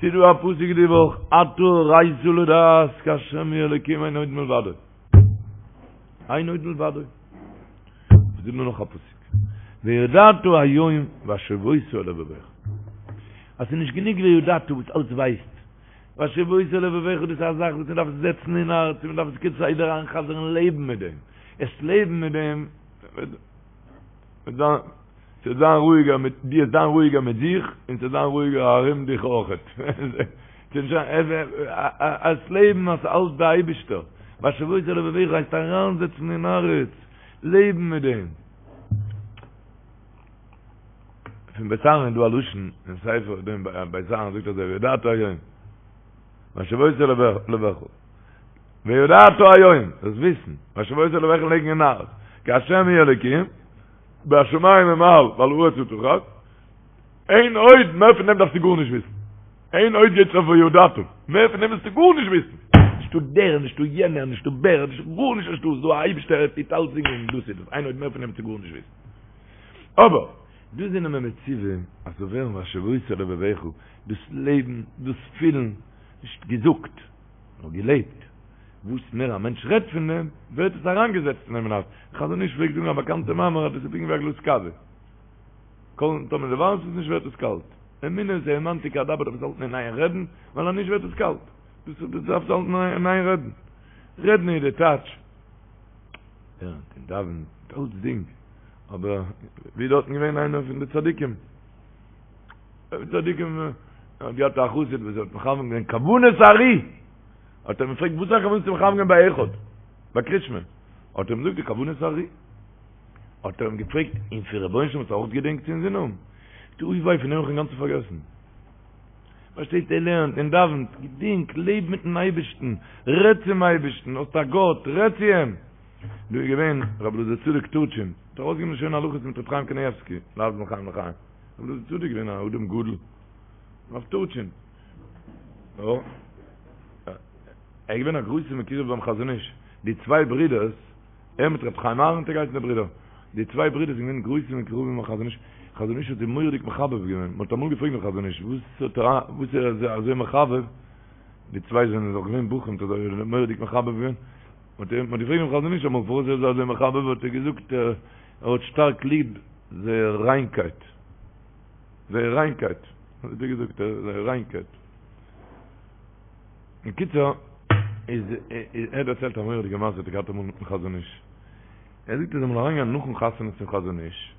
ס'איז דא א פסוק די וואך אתה הראת לדעת כי ה' הוא האלוקים אין עוד מלבדו, אין עוד מלבדו. ס'איז דא נאך א פסוק וידעת היום והשבות אל לבבך, אז ס'איז נישט גענוג וידעת וואס אלץ ווייסט, והשבות אל לבבך דאס איז א זאך וואס מען דארף זעצן אין הארץ און מען דארף עס כסדר איינ'חזר'ן און לעבן מיט דעם, עס לעבן מיט דעם וועט זיין ס'וועט זיין רואיגער מיט דיר, זיין רואיגער מיט זיך און ס'וועט זיין רואיגער ארום דיך אויכעט. עס לעבן אז ס'אלץ די אייבישטער, והשבות אל לבבך הייסט אריינזעצן אין הארץ, לעבן מיט דעם. פון בית אהרן איז דא א לשון אין ספר דעם בית אהרן זאגט אזוי וידעת היום והשבות אל לבבך וידעת היום דאס וויסן והשבות אל לבבך לייגן אין הארץ כי השם הוא האלוקים בשמים ממעל ועל הארץ מתחת אין עוד מער פון דעם דארפסטו גארנישט וויסן אין עוד גייט אויף וידעת מער פון דעם מוזטו גארנישט וויסן נישטא דער נישטא יענער נישטא בער נישטא גארנישט נישטא ס'דא א אייבישטער ער טוט אלצדינג און דאס איז דאס אין עוד מער פון דעם מוזטו גארנישט וויסן אבער דא זענען מיר מצווה אז ס'זאל ווערן והשבות אל לבבך, דאס לעבן, דאס פילן, נישט געזאגט, נאר געלעבט. וואס מער א מענטש רעדט פון דעם, ווערט עס אריינגעזעצט אין אים אין הארץ. חזון איש פלעגט זאגן א באקאנטע מאמר אז דאס איז פונקט ווי א גלאז קאווע. כל טאמער דו ווארעמסט עס נישט ווערט עס קאלט. אמונה איז האמנתי כי אדבר דארף עס האלטן אין איין רעדן, ווייל אז נישט ווערט עס קאלט. דאס דארפסטו האלטן אין איין רעדן. רעדן איז די טייטש. לערנט און דאווענט, אלצדינג. אבער ווי דארטן געווען איינער פון די צדיקים, צדיקים האט געהאט א חסיד וואס האט מכוון געווען כוונת הארי, האט ער אים געפרעגט וואס איז א כוונה צו מכוון געווען ביי אחד, ביי קרישמע, האט ער אים געזאגט די כוונת הארי, האט ער אים געפרעגט און פון רבונו של עולם האסטו אויך געדענקט אין זין האבן? זאגט ער אוי וויי פון דעם האב איך אינגאנצן פארגעסן. פארשטייט ער לערנט און דאווענט, געדענק, לעב מיטן אייבערשטן, רעד צום אייבערשטן, האסט א גאט, רעד צו אים. דא איז געווען רבי אלעזר צדוק טורטשין, האט ארויסגעגעבן שוין הלכות מיט רבי חיים קנייבסקי, להבדיל בין חיים לחיים. רבי אלעזר צדוק איז געווען א אדם גדול, רב טורטשין. יא. ער איז געווען א גרויסע מקורב ביים חזון איש. די צוויי ברידערס, ער מיט רבי חיים אהרן האט ער געהייסן די ברידער. די צוויי ברידער זענען געווען גרויסע מקורבים ביים חזון איש. חזון איש האט זיי מורא'דיג מחבב געווען. מען האט אמאל געפרעגט דעם חזון איש, וואס האט ער, וואס איז ער אזוי מחבב? די צוויי זענען דאך געווען בחורים, האט ער זיי מורא'דיג מחבב געווען. מ'האט אים געפרעגט דעם חזון איש אמאל פארוואס ער איז אזוי מחבב האט ער געזאגט ער האט שטארק ליב זייער ריינקייט, זייער ריינקייט, אזוי האט ער געזאגט זייער ריינקייט. בקיצור, איז ער האט דערציילט א מורא'דיגע מעשה האט ער געהאט אמאל מיטן חזון איש. ער זאגט ער איז אמאל אריינגעגאנגען נאכן חתונה צום חזון איש,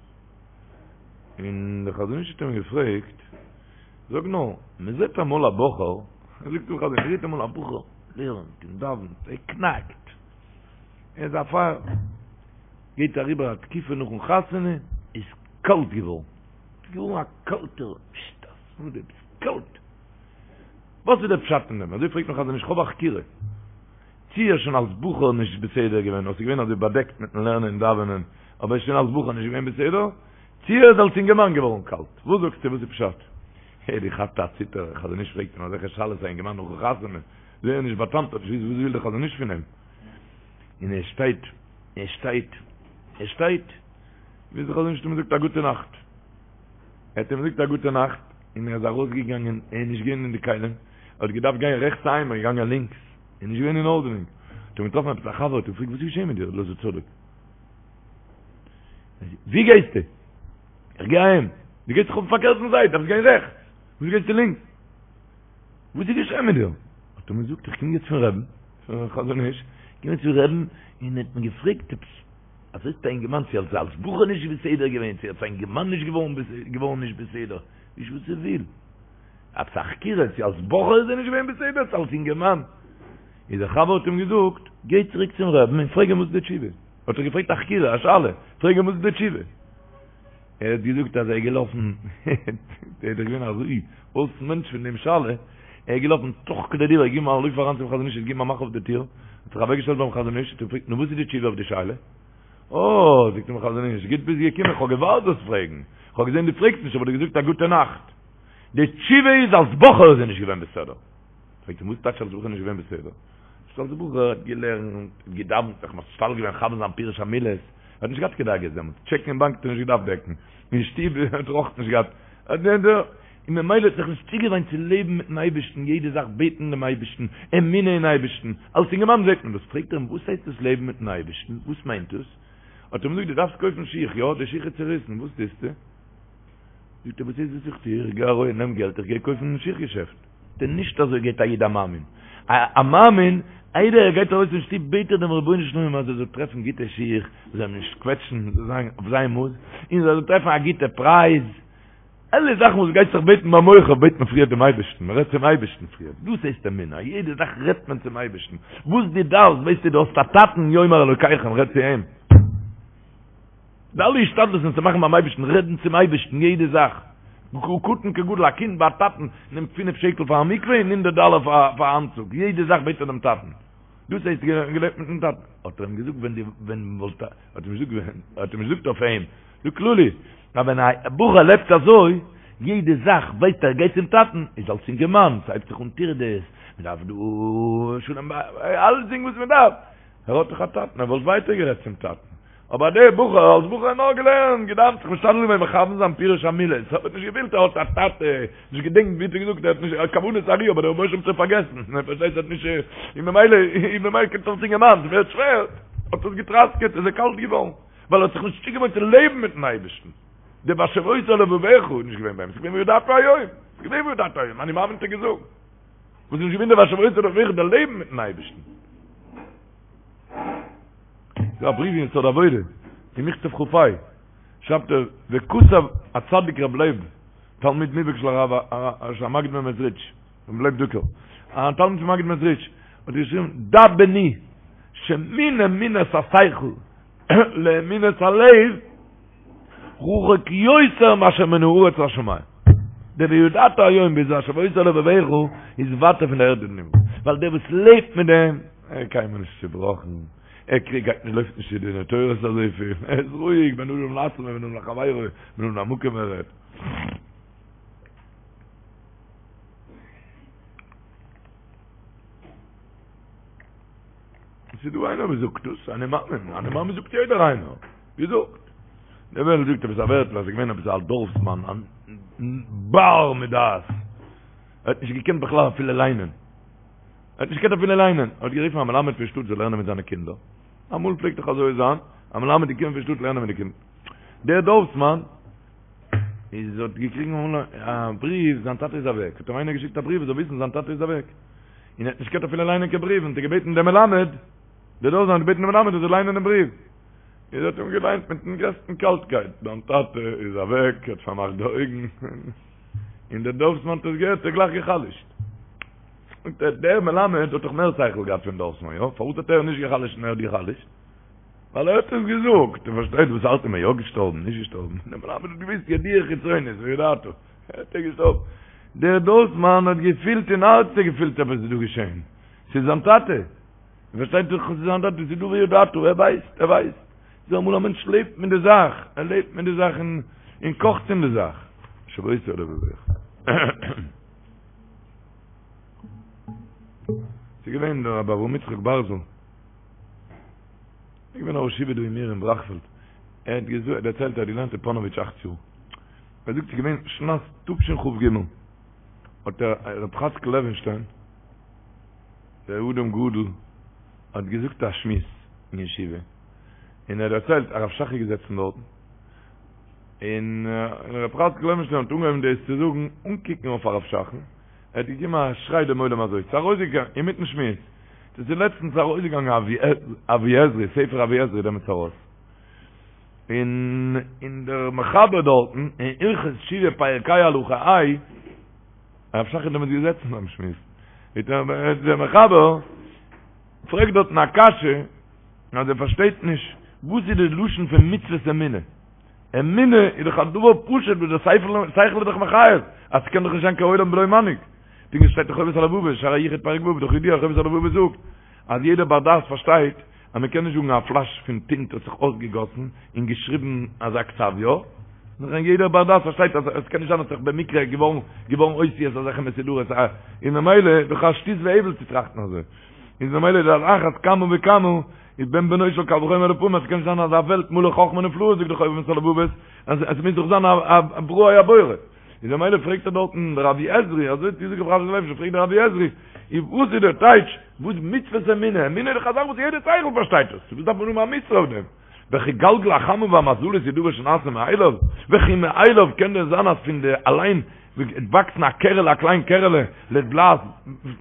און דער חזון איש האט אים געפרעגט, זאג נאר, מען זעט אמאל א בחור, זאגט דער חזון איש, מען זעט אמאל א בחור לערנט און דאווענט, ער קנאקט, ער איז א פייער, גייט אריבער א תקופה נאכן חתונה, איז קאלט געווארן, איז געווארן א קאלטער, פששט, א סאדע, ביסט קאלט. וואס איז דער פשט אין דעם? אזוי פרעגט דער חזון איש, כ'האב א חקירה. צי ער איז שוין אלס בחור נישט בסדר געווען, אדער ס'איז געווען אזוי באדעקט מיטן לערנען און דאווענען, אבער ער איז שוין אלס בחור נישט געווען בסדר, צי ער איז אלס אינגערמאן געווארן קאלט. וואס זאגסטו, וואס איז פשט? ער האט געכאפט א ציטער, דער חזון איש פרעגט אים אזעלכע שאלות א אינגערמאן נאכן חתונה, זייער נישט באטאמט, האט נישט געוואוסט וואס וויל דער חזון איש פון אים, און ער שטייט, ער שטייט, ער שטייט, ביז דער חזון איש האט אים געזאגט א גוטע נאכט. ער האט אים געזאגט א גוטע נאכט, און ער איז ארויסגעגאנגען, ער איז נישט געווען אין די כלים, ער האט געדארפט גיין רעכטס אהיים, ער איז געגאנגען לינקס, ער איז נישט געווען אין ארדענונג, האט אים געטראפן עפעס א חבר, האט אים געפרעגט וואס איז געשען מיט דיר, אלעזר צדוק? ווי גייסטו? איך גיי אהיים. דו גייסט דאך אויפן פארקערטן זייט, דארפסט גיין רעכטס, וואס גייסטו לינקס? וואס איז געשען מיט דיר? האט ער אים געזאגט, איך קום יעצט פון רעבן, פון חזון איש, איך קום יעצט פון רעבן, און ער האט מיר געפרעגט עפעס, אזוי איז א אינגערמאן צו אלס אלס בחור נישט בסדר געווען, צו אלס א אינגערמאן נישט געווארן געווארן נישט בסדר, נישט וואס ער וויל. עפעס א חקירה, צו אלס בחור איז ער נישט געווען בסדר, צו אלס אינגערמאן. איז דער חבר האט אים געזאגט, גיי צוריק צום רעבן און פרעג אים וואס איז די תשובה. האט ער געפרעגט א חקירה, א שאלה, פרעג אים וואס איז די תשובה. ער האט געזאגט אז ער איז געלאפן, ער איז דאך געווען אזוי אויס מענטש פון דעם שאלה, ער איז געלאפן תוך כדי דיבור, געגעבן א לויף אריין צום חזון איש, געגעבן א מאך אויף די טיר, האט זיך אוועקגעשטעלט ביים חזון איש, האט אים געפרעגט, נו וואס איז די תשובה אויף די שאלה? אה, זאגט אים חזון איש, גוט ביסט געקומען, איך האב געווארט זאלסט פרעגן, איך האב געזען דו פרעגסט נישט, האב איך דיר געזאגט א גוטע נאכט. די תשובה איז אלס בחור איז ער נישט געווען בסדר. פרעגט אים וואס טייטש אלס בחור נישט געווען בסדר? זאגט אלס בחור האט געלערנט, האט געדאווענט, זיך משתדל געווען מכוון זיין פירוש המילות, ער האט נישט געהאט קיין דאגות דעמאלטס, טשעקן אין באנק האט ער נישט געדארפט דעקן, אין שטוב האט ער אויך נישט געהאט, און ממילא האט זיך נישט צוגעוואינט צו לעבן מיטן אייבערשטן, יעדע זאך בעטן דעם אייבערשטן, אמונה אין אייבערשטן, אלס אינגערמאן זעט מען דאס, פרעגט ער אים וואס הייסט דאס לעבן מיטן אייבערשטן, וואס מיינט דאס? האט ער אים געזאגט דו דארפסט קויפן שיך, יא, די שיך איז צוריסן, וואס טוסטו? זאגט ער וואס איז וואס איך טו, איך גיי ארויס נעם געלט איך גיי קויפן אין שיך געשעפט. זאגט ער נישט אזוי גייט א איד א מאמין, א מאמין איידער ער גייט ארויס פון שטוב בעט ער דעם רבונו של עולם אז ער זאל טרעפן גוטע שיך וואס זאלן אים נישט קוועטשן, זאל זיין אויף זיין מאס, און ער זאל טרעפן א גוטע פרייז, אלע זאכן וואס גייסט זיך בעטן ביים מוכר בעט מען פריער דעם אייבערשטן, מען רעדט צום אייבערשטן פריער, דאס הייסט אמונה, יעדע זאך רעדט מען צום אייבערשטן, וואס דו דארפסט ווייסטו דו האסט א טאטן יאמר אלוקיכם רעד צו אים. די אלע השתדלות'ן צו מאכן ביים אייבערשטן, רעדן צום אייבערשטן יעדע זאך, קטן כגדול, א קינד ביי א טאטן נעמט פינף שקל פאר א מקווה און הונדערט דאלער פאר א אנצוג, יעדע זאך בעט ער דעם טאטן, דאס הייסט געלעבט מיטן טאטן, האט ער אים געזאגט ווען די ווען וואלט האט אים געזאגט ווען האט אים געזאגט אויף אים, דא כללי, אז ווען א בחור לעבט אזוי, יעדע זאך ווייסט ער גייט צום טאטן, איז אלס אינגערמאן, ס'הייבט זיך אן טירדות, מ'דארף דא שלום בית, אלצדינג וואס מ'דארף, ער האט דאך א טאטן, ער וואלט ווייטער גערעדט צום טאטן. אבער דער בחור, אלס בחור נאר געלערנט, געדאוונט, זיך משתדל געווען מכוון זיין פירוש המילות, האט נישט געפילט ער האט א טאטע, נישט געדענקט ווי האט ער געזאגט, ער האט נישט, כוונת הארי, אבער דער רבונו של עולם האט שוין פארגעסן, ער פארשטייט האט נישט, און ממילא, און ממילא קומט אלס אינגערמאן, ס'ווערט שווער, האט עס געטראסקעט, איז ער קאלט געווארן, ווייל ער האט זיך נישט צוגעוואוינט צו לעבן מיטן אייבערשטן. דער והשבות אל לבבך איז נישט געווען ביי אים, ס'איז געווען וידעת היום, ס'איז געווען וידעת היום, אני מאמין האט ער געזאגט. וואס איז נישט געווען דער והשבות אל לבבך דער לעבן מיטן אייבערשטן. ס'דא א בריוו אין יסוד העבודה, אין מכתב כ"ה, שרייבט ער, וכתב הצדיק רב לייב, תלמיד מובהק של הרב של המגיד ממעזריטש, רב לייב דוקער, א תלמיד פון מגיד מעזריטש, האט געשריבן, דע בני, שמן אמונת השכל לאמונת הלב, רחוק יותר מאשר מן הארץ לשמים. דער וידעת היום ביז והשבות אל לבבך איז ווייטער פון די ערד און הימל. ווייל דער וואס לעבט מיט דעם, ער איז קיינמאל נישט צובראכן, ער קריגט גייט נישט לויפט נישט צו דיני תורות אזויפיל, ער איז רואיג בין אדם לעצמו ובין אדם לחבירו, בין אדם למקום ער רעדט. עס איז דא איינער וואס זאגט דאס, אני מאמין, אני מאמין זאגט יעדער איינער, געזאגט. דער וועלט זאגט עפעס א ווערטל אז עס איז געווען עפעס א דארפסמאן, א בר מדעת, ער האט נישט געקענט בכלל אפילו ליינען, ער האט נישט געקענט אפילו ליינען, ער האט גערופן א מלמד פון שטאט זאל לערנען מיט זיינע קינדער, אמאל פלעגט דאך אזוי זיין, א מלמד איז געקומען פון שטאט לערנען מיט די קינדער, דער דארפסמאן איז האט געקריגן א בריוו, זיין טאטע איז אוועק, האט אים איינער געשיקט א בריוו ער זאל וויסן זיין טאטע איז אוועק. און ער האט נישט געקענט אפילו ליינען קיין בריוו, און האט ער געבעטן דעם מלמד, דער דארפסמאן האט געבעטן דעם מלמד ער זאל ליינען דעם בריוו. און ער האט אים געליינט מיטן גרעסטן קאלטקייט, דיין טאטע איז אוועק, ער האט פארמאכט די אויגן, און דער דארפסמאן האט עס געהערט, האט ער גלייך גע'חלש'ט. זאגט ער, דער מלמד האט דאך מער שכל געהאט פון דארפסמאן, יא? פארוואס האט ער נישט גע'חלש'ט און ער האט גע'חלש'ט? ווייל ער האט עס געזאגט, איר פארשטייט וואס הארט אים, ער איז יא געשטארבן, נישט געשטארבן, דער מלמד האט געוואוסט ידיעה חיצונית, וידעת. האט ער געשטארבן. דער דארפסמאן האט געפילט אין הארץ ער געפילט עפעס איז דא געשען. ס'איז זיין טאטע. איר פארשטייט דאך ס'איז זיין טאטע, ס'איז דא וידעת, ער ווייסט, ער ווייסט. ס'איז אמאל א מענטש לעבט מיט די זאך, ער לעבט מיט די זאך און און קאכט אין די זאך. והשבות אל לבבך. ס'איז געווען דער רבי אברהם יצחק בארזל. איז געווען א ראש ישיבה דא אין מיר אין בראכפעלד. ער האט געזאגט, דערציילט ער האט געלערנט אין פאנאוויטש אכט יאר. ער זאגט ס'איז געווען שנת תשכ"ג האט דער רב חאצקל לעווינשטיין, דער אדם גדול, האט געזאגט א שמועס אין ישיבה, און ער האט דערציילט הרב שך איז געזעצן דארטן, און רב חאצקל לעווינשטיין האט אנגעהויבן דאס צו זאגן אן קוקן אויף הרב שך'ן, ער האט געגעבן א שריי דעם עולם אזוי, ס'איז ארויסגעגאנגען אינמיטן שמועס, דאס איז לעצטנס ארויסגעגאנגען אבי עזרי, ספר אבי עזרי דעמאלטס ארויס, און און דער מחבר דארטן אין הלכות תשובה פרק ה' הלכה ה', הרב שך איז דעמאלטס געזעצן ביים שמועס, דער מחבר פרעגט דארטן א קשיא אז ער פארשטייט נישט וואס איז די לשון פון מצוות אמונה, אמונה איז דאך א דבר פשוט וואס דער שכל איז דאך מחייב אז ס'קען דאך נישט זיין קיין עולם בלא מנהיג, פונקט ווי ס'שטייט אין חובת הלבבות, שער היחוד פרק ו', דאך ידוע חובת הלבבות זאגט אז יעדער בר דעת פארשטייט אז מען קען נישט זאגן א פלאש פון טינט האט זיך אויסגעגאסן און געשריבן אזא כתב יא, נאר יעדער בר דעת פארשטייט אז עס קען נישט זיין האט זיך במקרה געווארן געווארן אותיות אזעלכע מסודרות א און ממילא איז דאך א שטות והבל צו טראכטן אזוי איז ממילא איז על אחת כמה וכמה איז בן בנו של קל וחומר לפעמים אז עס קען נישט זיין אזא וועלט מלא חכמה נפלאות זאגט דאך חובת הלבבות אז עס מוז דאך זיין א בראו א בורא. איז ממילא פרעגט ער דארטן דער אבי עזרי, אזוי האט געזאגט רב חאצקל לעווינשטיין, פרעגט דער אבי עזרי, איז וואס איז דער טייטש, וואס מצוות אמונה, אמונה איז דאך א זאך וואס יעדער שכל פארשטייט עס, וואס דארף מען האבן א מצוה אויף דעם? וכי גלגל החמה והמזלות איז דבר שנעשה מאליו, וכי מאליו קען דען זיין אז פון די אליין וועט וואקסן א קערעלע א קליין קערעלע לדלעת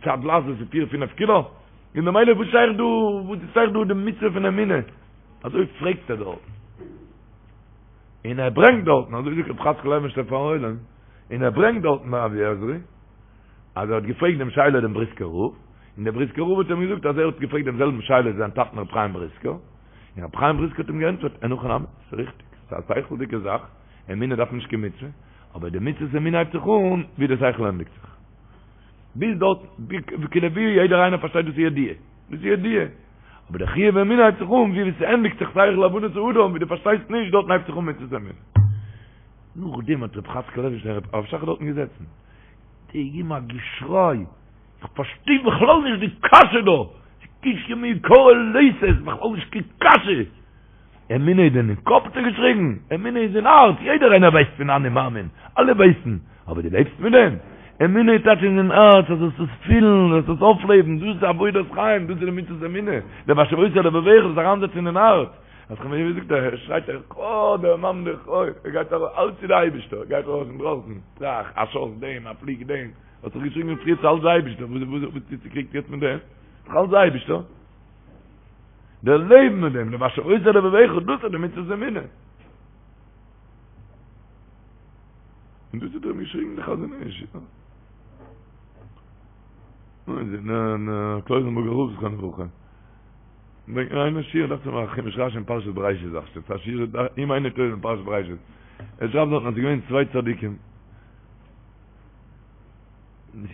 צו א דלעת וואס איז פיר פינעף קילא, און ממילא וואס שייך דא וואס איז שייך דא די מצוה פון אמונה? אזוי פרעגט ער דארט. און ער ברענגט דארטן, אזוי זאגט רב חאצקל לעווינשטיין פארן עולם, און ער ברענגט דארטן ביי אבי עזרי, אז ער האט געפרעגט דעם שאלה דעם בריסקער רב, און דער בריסקער רב האט אים געזאגט אז ער האט געפרעגט דעם זעלבן שאלה זיין טאטן רב חיים בריסקער, און רב חיים בריסקער האט אים געענטפערט, אין הכי נמי, ס'איז ריכטיג, ס'איז א שכל'דיגע זאך, אמונה דארף נישט קיין מצוה, אבער די מצוות אמונה הייבט זיך אן ווי די שכל ענדיגט זיך. ביז דארט, כאילו ווי יעדער איינער פארשטייט דאס איז ידיעה, דאס איז ידיעה. אבער דער חיוב אמונה הייבט זיך אן ווי ס'ענדיגט זיך שכל הבנת האדם, ווי דו פארשטייסט נישט, דארטן הייבט זיך אן מצוות אמונה. נאכדעם האט רב חאצקל לעווינשטיין הרב שך איז דארטן געזעצן, געגעבן א געשריי, איך פארשטיי בכלל נישט די קשיא דא, ס'קושיא מעיקרא ליתא, ס'איז בכלל נישט קיין קשיא, אמונה איז דען אין קאפ האט ער געשריגן, אמונה איז אין הארץ, יעדער איינער ווייסט פון אני מאמין, אלע ווייסן, אבער דו לעבסט מיט דעם? אמונה איז טייטש אין הארץ, אז זאלסט עס פילן, זאלסט עס אויפלעבן, דאס איז עבודת חיים, דאס איז די מצוות אמונה, דער והשבות אל לבבך, דאס אריינזעצן אין הארץ, אז כ'מיין ווי זאגט ער, שרייט ער, אה, דער מאן דער חי, ער גייט ארויס, אלץ איז די אייבישטער, ער גייט ארויס אינדרויסן, טראך, א שאס דעם, א פליג דעם, האסט דאך געשריגן פריער ס'איז אלץ די אייבישטער, וואס וואס וואס ביסטו צוקריגט יעצט מיט דעם? ס'איז דאך אלץ די אייבישטער. דער לעבן מיט דעם, דער והשבות אל לבבך, דאס איז די מצוות אמונה. און דאס האט ער אים געשריגן די חזון איש, יא. נו, איז אין קלויזענבורגער רב זכרונו לברכה. ברענגט מיר איינער שיעור, דאכט זיך מיר א חומש רשי אין פרשת בראשית דאכט זיך, א שיעור אם איני טועה אין פרשת בראשית. ער שרייבט דארטן אז ס'איז געווען צוויי צדיקים.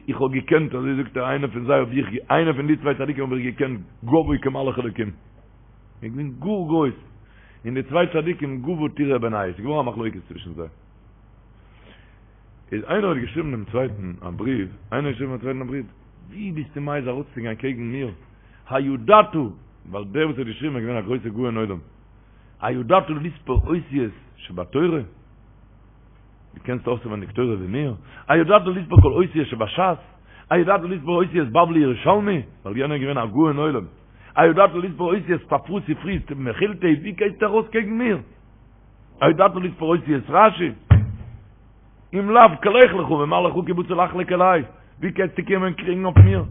איך האב געקענט, אזוי זאגט ער, איינער פון זיי האב איך, איינער פון די צוויי צדיקים האב איך געקענט גבוה כמלאך אלוקים. ער איז געווען גאר גרויס. און די צוויי צדיקים גבה טורא בינייהו, ס'איז געווארן א מחלוקת צווישן זיי. איז איינער האט געשריבן דעם צווייטן א בריוו, איינער האט געשריבן דעם צווייטן א בריוו, ווי ביסטו מעיז ארויסצוגיין קעגן מיר, הידעת, ווייל דער וואס האט געשריבן איז געווען א גרויסער גאון עולם, הידעת לספור אותיות שבתורה? דו קענסט אויסענווייניג תורה ווי מיר? הידעת לספור כל אותיות שבשס? הידעת לספור אותיות בבלי ירושלמי? ווייל יענער איז געווען א גאון עולם. הידעת לספור אותיות ספרא ספרי מכילתא? ווי גייסטו ארויס קעגן מיר? הידעת לספור אותיות רשי? אם לאו לך לך ומה לך כי באת לחלוק עלי? ווי קענסטו קומען קריגן אויף מיר?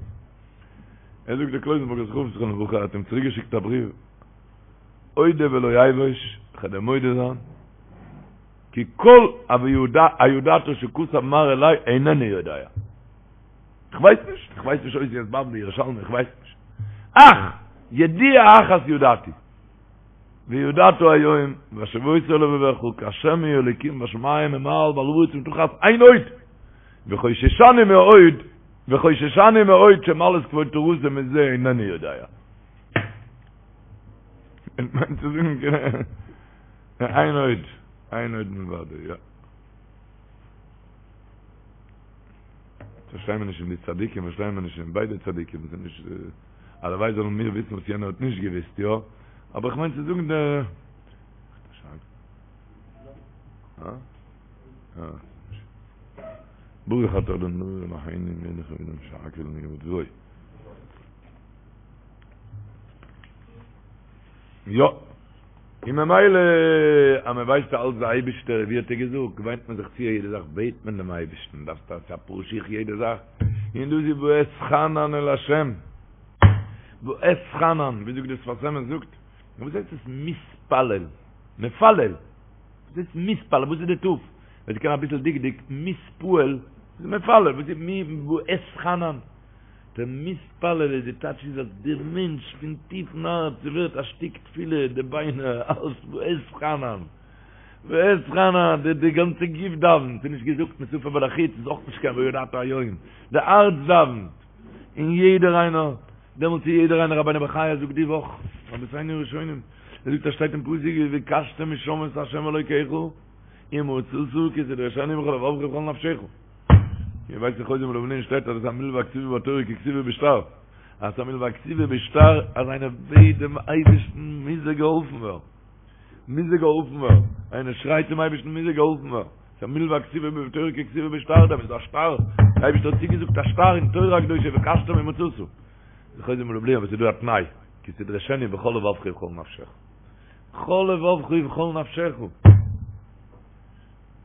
ער זאגט דער קלויזענבורגער רב זכרונו לברכה האט אים צוריק געשיקט א בריוו, אודה ולא אבוש, כ'וועל דיר מודה זיין, כי כל הידעת שכתב מר אלי אינני יודע. איך ווייס נישט, איך ווייס נישט אותיות בבלי ירושלמי, איך ווייס נישט. אך, ידיעה אחת ידעתי, וידעת היום, והשבות אל לבבך, כי השם הוא האלוקים בשמים ממעל ועל הארץ מתחת אין עוד, וחוששני מאוד, וחוששני מאוד שמעלת כבוד תורתו מזה אינני יודע. מיינט צו זאגן, אין עוד, אין עוד מלבדו, יא. פארשטיי מיר נישט אין די צדיקים, פארשטיי מיר נישט אין ביידע צדיקים, ס'איז נישט, הלוואי זאלן מיר וויסן וואס יענער האט נישט געוויסט, יא? אבער איך מיין צו זאגן די. ברוך אתה אדוני אלוהינו מלך העולם שהכל נהיה בדברו. יא. און ממילא אז מען ווייסט אלץ די אייבישטער ווי האט ער געזאגט געוויינט מען זיך צו יעדע זאך בעט מען דעם אייבישטן דארפסט א פאר שיך יעדע זאך און דאס איז ואתחנן אל השם ואתחנן ווי זאגט דער שפת אמת זאגט וואס הייסט עס מתפלל מפלל וואס הייסט מתפלל וואס איז די ת' ווער ס'קען אביסל דקדוק מתפעל איז מפלל וואס איז מי ואתחנן דער מתפלל איז די טייטש איז אז דער מענטש פון טיפן הארץ ס'ווערט א שטיק תפילה די ביינער אלס ואתחנן ואתחנן די די גאנצע גוף דאווענט ס'איז נישט געזאגט משפה ולחוץ איז אויך נישט קיין וידעת היום די הארץ דאווענט און יעדער איינער דעמאלטס איז יעדער איינער רבינו בחיי זאגט די וואך רבותינו הראשונים ער זאגט אז שטייט אין פסוק ובקשתם משם את ה' אלוקיך ומצאת כי תדרשנו בכל לבבך ובכל נפשך איר ווייסט אין חוזה מלובלין שטייט אז עס איז א מלווה הכתובה בתורה ככתובה בשטר. אז עס איז א מלווה הכתובה בשטר אז איינער בעט דעם אייבערשטן מוז ער געהאלפן ווערן. מוז ער געהאלפן ווערן. איינער שרייט צום אייבערשטן מוז ער געהאלפן ווערן. עס איז א מלווה הכתובה בתורה ככתובה בשטר דמי, איז דא א שטר. דער אייבערשטער האט צוגעזאגט א שטר אין תורה הקדושה ובקשתם ומצאת. די חוזה מלובלין אבער עס איז דא א תנאי, כי תדרשנו בכל לבבך ובכל נפשך. בכל לבבך ובכל נפשך.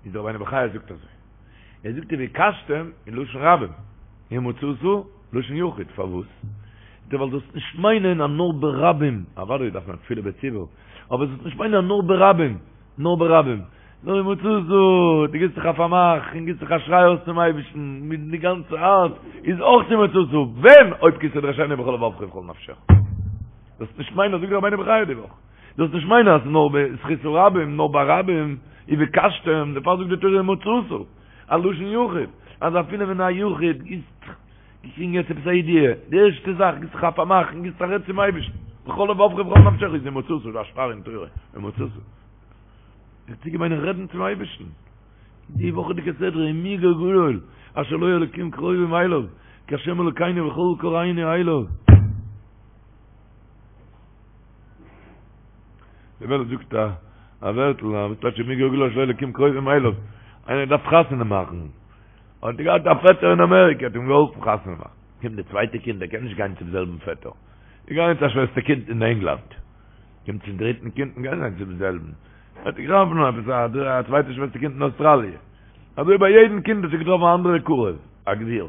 איז דער רבינו בחיי זאגט אזוי, ער זאגט ובקשתם אין לשון רבים, ומצאת לשון יחיד, פארוואס? זאגט ער ווייל זאלסט נישט מיינען אז נאר ברבים, אוודאי דארף מען תפילה בציבור, אבער זאלסט נישט מיינען אז נאר ברבים, נאר ברבים, נאר ומצאת, דו גיבסט זיך א פארמאך און גיבסט זיך א שריי אויס צום אייבערשטן מיט די גאנצע הארץ, איז אויך ומצאת, ווען? אויב כי תדרשנו בכל לבבך ובכל נפשך. זאלסט נישט מיינען, זאגט דער רבינו בחיי די וואך. זאלסט נישט מיינען אז נאר בזכות הרבים, נאר ברבים, ובקשתם, דערפאר זאגט די תורה ומצאת, א לשון יחיד, אז אפילו ווען א יחיד גיסט, געקריגן יעצט עפעס א ידיעה, די ערשטע זאך גיסט זיך א פארמאך און גיסט א רעד צום אייבערשטן, בכל לבבך ובכל נפשך איז ומצאת, דא א שטר אין תורה, ומצאת. זיך צוגעוויינען רעדן צום אייבערשטן. די וואכעדיגע סדרה ומי גוי גדול אשר לו אלקים קרובים אליו, כהשם אלוקינו בכל קראנו אליו. די וועלט זאגט א א ווערטל אז וואס טייטש ומי גוי גדול אשר לו אלקים קרובים אליו איינער דארף חתונה מאכן האט ער געהאט א פעטער אין אמעריקע האט אים געהאלפן חתונה מאכן קומט די צווייטע קינד ער קען נישט גיין צום זעלבן פעטער איז געגאנגען צו א שוועסטער קינד אין ענגלאנד קומט צום דריטן קינד און גיין צום זעלבן האט ער געטראפן עפעס א צווייטע שוועסטער קינד אין אוסטראליע אזוי ביי יעדן קינד האט זיך געטראפן א אנדערע קרוב א גביר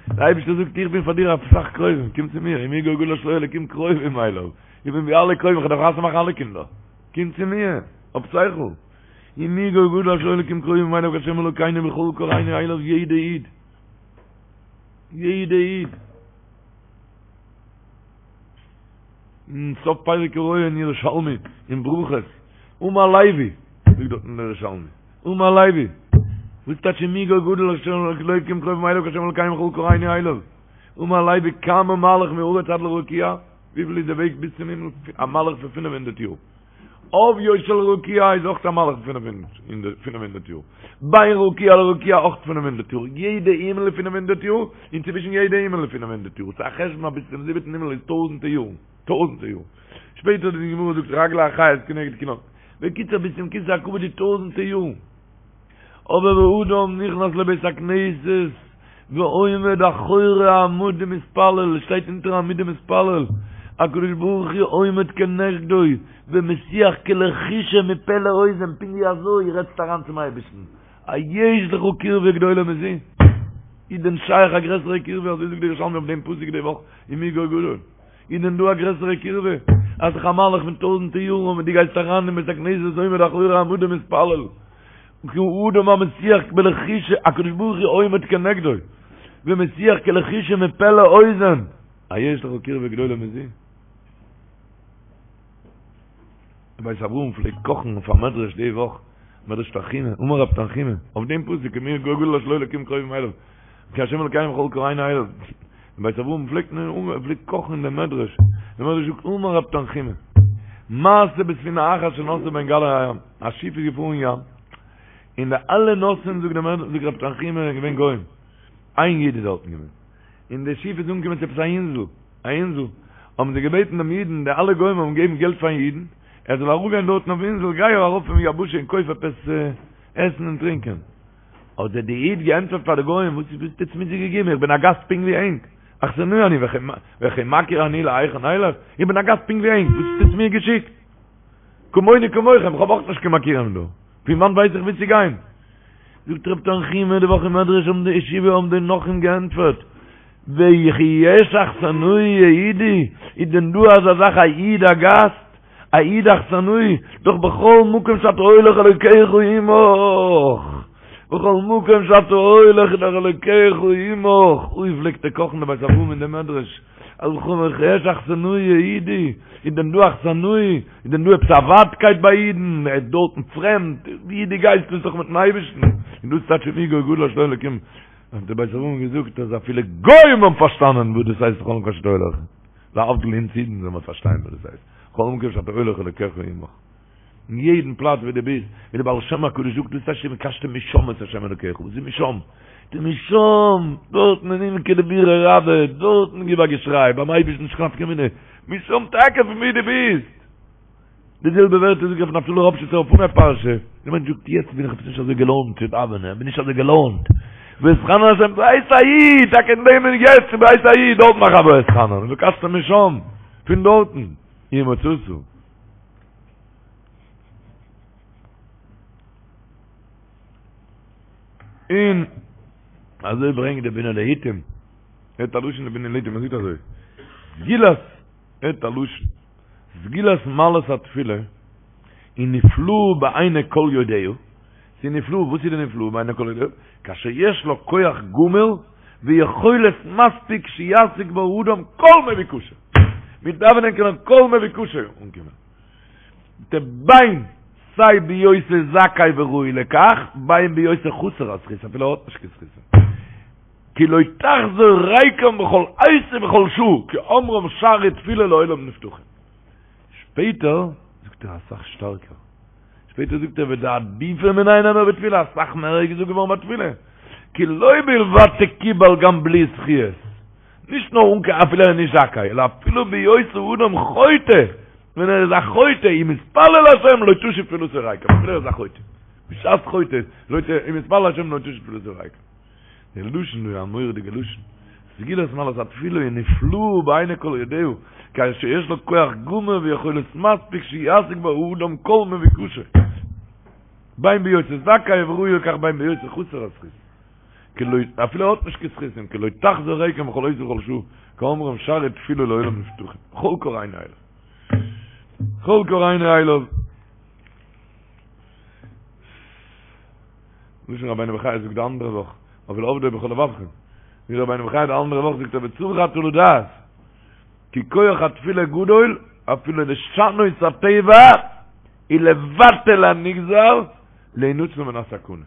דער אייבערשטער זאגט איך בין פאר דיר אסאך קרובים קום צו מיר ומי גוי גדול אשר לו אלקים קרובים אליו איך בין ווי אלע קרובים, איך דארף חתונה מאכן אלע קינדער. קום צו מיר, האב שכל. ומי גוי גדול אשר לו אלקים קרובים אליו כהשם אלוקינו בכל קראנו אליו יעדע איד. יעדע איד. אין סוף פרק הרואה אין ירושלמי, אין ברכות, אמר לוי, זאגט דארט אין ירושלמי, אמר לוי, וואס טייטש ומי גוי גדול אשר לו אלקים קרובים אליו כהשם אלוקינו בכל קראנו אליו? אמר לוי כמה מהלך מארץ עד לרקיע? וויפיל איז די וועג ביז צום הימל? א מהלך פון פינף הונדערט יאר. עוביו של רקיע איז אויך א מהלך פון פינף הונדערט יאר. בין רקיע לרקיע אויך פינף הונדערט יאר. יעדע הימל איז פינף הונדערט יאר, און צווישן יעדע הימל איז פינף הונדערט יאר. ס'איז א חשבון אז ביז צום זיבעטן הימל איז טויזנטער יארן. טויזנטער יארן. שפעטער די גמרא זאגט רגלי החיות כנגד כולם. בקיצור ביז צום כסא הכבוד איז טויזנטער יארן. אבער ואדם נכנס לבית הכנסת ועומד אחורי העמוד ומתפלל, שטייט אונטער עמוד ומתפלל, הקדוש ברוך הוא עומד כנגדו ומשיח כלחישה מפה לאוזן, פונקט ווי אזוי רעדסטו אריין צום אייבערשטן, היש לך קרבה גדולה מזו? איז דען שייך א גרעסערע קרבה, אזוי זאגט דער ירושלמי אויף דעם פסוק די וואך, ומי גוי גדול? איז דען דא א גרעסערע קירבה? אז ס'איז א מהלך פון טויזענטער יארן און דו גייסט אריין אין בית הכנסת עומד אחורי העמוד ומתפלל כאדם המשיח בלחישה הקדוש ברוך הוא עומד כנגדו ומשיח כלחישה מפה לאוזן היש לך קירבה גדולה מזו? בית אברהם פלעגט קאכן אויף א מדרש די וואך, מדרש תנחומא, אמר רב תנחומא, אויף דעם פסוק ומי גוי גדול אשר לו אלקים קרובים אליו, כי השם אלקינו בכל קראנו אליו, בית אברהם פלעגט פלעגט קאכן אין דעם מדרש, דער מדרש זאגט אמר רב תנחומא, מעשה בספינה אחת שנסעה בין גלי הים, א שיף איז געפארן אין ים, און די אלע נוסעים זאגט דער מדרש זאגט רב תנחומא זענען געווען גוים. איין איד איז דארטן געווען, און די שיף איז אנגעקומען צו עפעס א אינזל, א אינזל, האבן זיי געבעטן דעם אידן, די אלע גוים האבן געגעבן געלט פארן אידן, ער זאל אראפגיין דארטן אויפן אינזל, גיי ארויף פון יבשה און קויף עפעס עסן און טרינקען. האט דער די איד געענטפערט פאר די גוים, וואס וואס האט עטס מיר געגעבן, איך בין א גאסט פונקט ווי ענק, אכסנאי אני וכי מכיר אני להיכן אלך, איך בין א גאסט פונקט ווי ענק, וואס האט עטס מיר געשיקט? כמוני כמוכם, איך האב אויך נישט קיין מכירים דא, פון וואנט ווייס איך וואו צו גיין? זאגט רב תנחומא די וואך אין מדרש האבן די ישיבה האבן די נכרים געענטפערט, וכי יש אכסנאי יהודי, איז דען דא אזא זאך א איד א גאסט? א איד אכסנאי, דאך בכל מקום שאתה הולך אלוקיך עמך, בכל מקום שאתה הולך איז דאך אלוקיך עמך, אוי פלעגט ער קאכן די בית אברהם אין די מדרש, אז וכי יש אכסנאי יהודי, איז דען דא אכסנאי, איז דען דא עפעס א ווייטקייט ביי אידן, ער איז דארטן פרעמד, ווי דו גייסט ביסט דאך מיטן אייבערשטן, און דאס טייטש ומי גוי גדול אשר לו אלקים, האט די בית אברהם געזאגט אז אפילו גוים האבן פארשטאנען וואס דאס הייסט בכל מקום שאתה הולך. להבדיל אונז אידן זאל מען פארשטיין וואס דאס הייסט, בכל מקום שאתה הולך אלוקיך עמך. אין יעדן פלאץ ווי דו ביסט, ווי דער בעל שם הקדוש זאגט דאס הייסט ובקשתם משם את השם אלוקיך, וואס איז משם? די משם, דארטן אין עמקא דבירא רבא, דארטן גיב א געשריי, ביים אייבערשטן נישט קיין נפקא מינה, משם טאקע פון ווי דו ביסט. די זעלבע ווערטער זאגט רבי נפתלי ראפשיצער אויף אנהייב פרשה, דער מענטש זאגט יעצט בין איך עפעס נישט אזוי געלוינט צו דאווענען, איך בין נישט אזוי געלוינט, ואתחנן אל השם בעת ההיא, טאקע אין דעם מינוט יעצט בעת ההיא, דארט מאך א ואתחנן, ובקשתם משם, פון דארטן, ומצאת. און אזוי ברענגט די בינה לעיתים, ער האט א לשון די בינה לעיתים, ער זאגט אזוי, סגולת, ער האט א לשון. סגולת מעלת התפילה היא נפלאה בעיני כל יודעיה, ס'איז נפלא, וואס איז די נפלאה בעיני כל יודעיה? כאשר יש לה כח גמור ויכולת מספיק שישיג בה האדם כל מבוקשו, מיט דאווענען קען ער כל מבוקשו אנקומען, בין סיי בהיותו זכאי וראוי לכך, בין בהיותו חסר הזכות, אפילו ער האט נישט קיין זכות. כי לא תחזור ריקם בכל עת ובכל שעה, כאומרם שערי תפילה לעולם נפתחים. שפעטער זאגט ער אסאך שטארקער, שפעטער זאגט ער ודעדיפא מיניה נאמר בתפילה, אסאך מער איז געזאגט געווארן ביי תפילה, כי לא בלבד תקובל גם בלי זכיות, נישט נאר אן קיין אפילו ער איז נישט זכאי, אלא אפילו בהיות האדם חוטא, ווען ער איז א חוטא, אם יתפלל להשם לא תשוב תפילתו ריקם, אפילו ער איז א חוטא, בשעת חוטא, לא ת, אם יתפלל להשם לא תשוב תפילתו ריקם. די לשון איז א מורא'דיגע לשון. סגולת מעלת התפילה היא נפלאה בעיני כל יודעיה, כאשר יש לה כח גמור ויכולת מספיק שישיג בה האדם כל מבוקשו. בין בהיותו זכאי וראוי לכך בין בהיותו חסר הזכות. כי לא, אפילו ער האט נישט קיין זכותים, כי לא תחזור ריקם בכל עת ובכל שעה, כאומרם שערי תפילה לעולם נפתחים. בכל קראנו אליו. בכל קראנו אליו. לשון רבינו בחיי זאגט די אנדערע וואך, אויף ולעבדו בכל לבבכם. ווי רבינו בחיי די אנדערע וואך זאגט ער וצריך אתה לדעת, כי כח התפילה גדול אפילו לשנות הטבע ולבטל הנגזר להינצל מן הסכנה.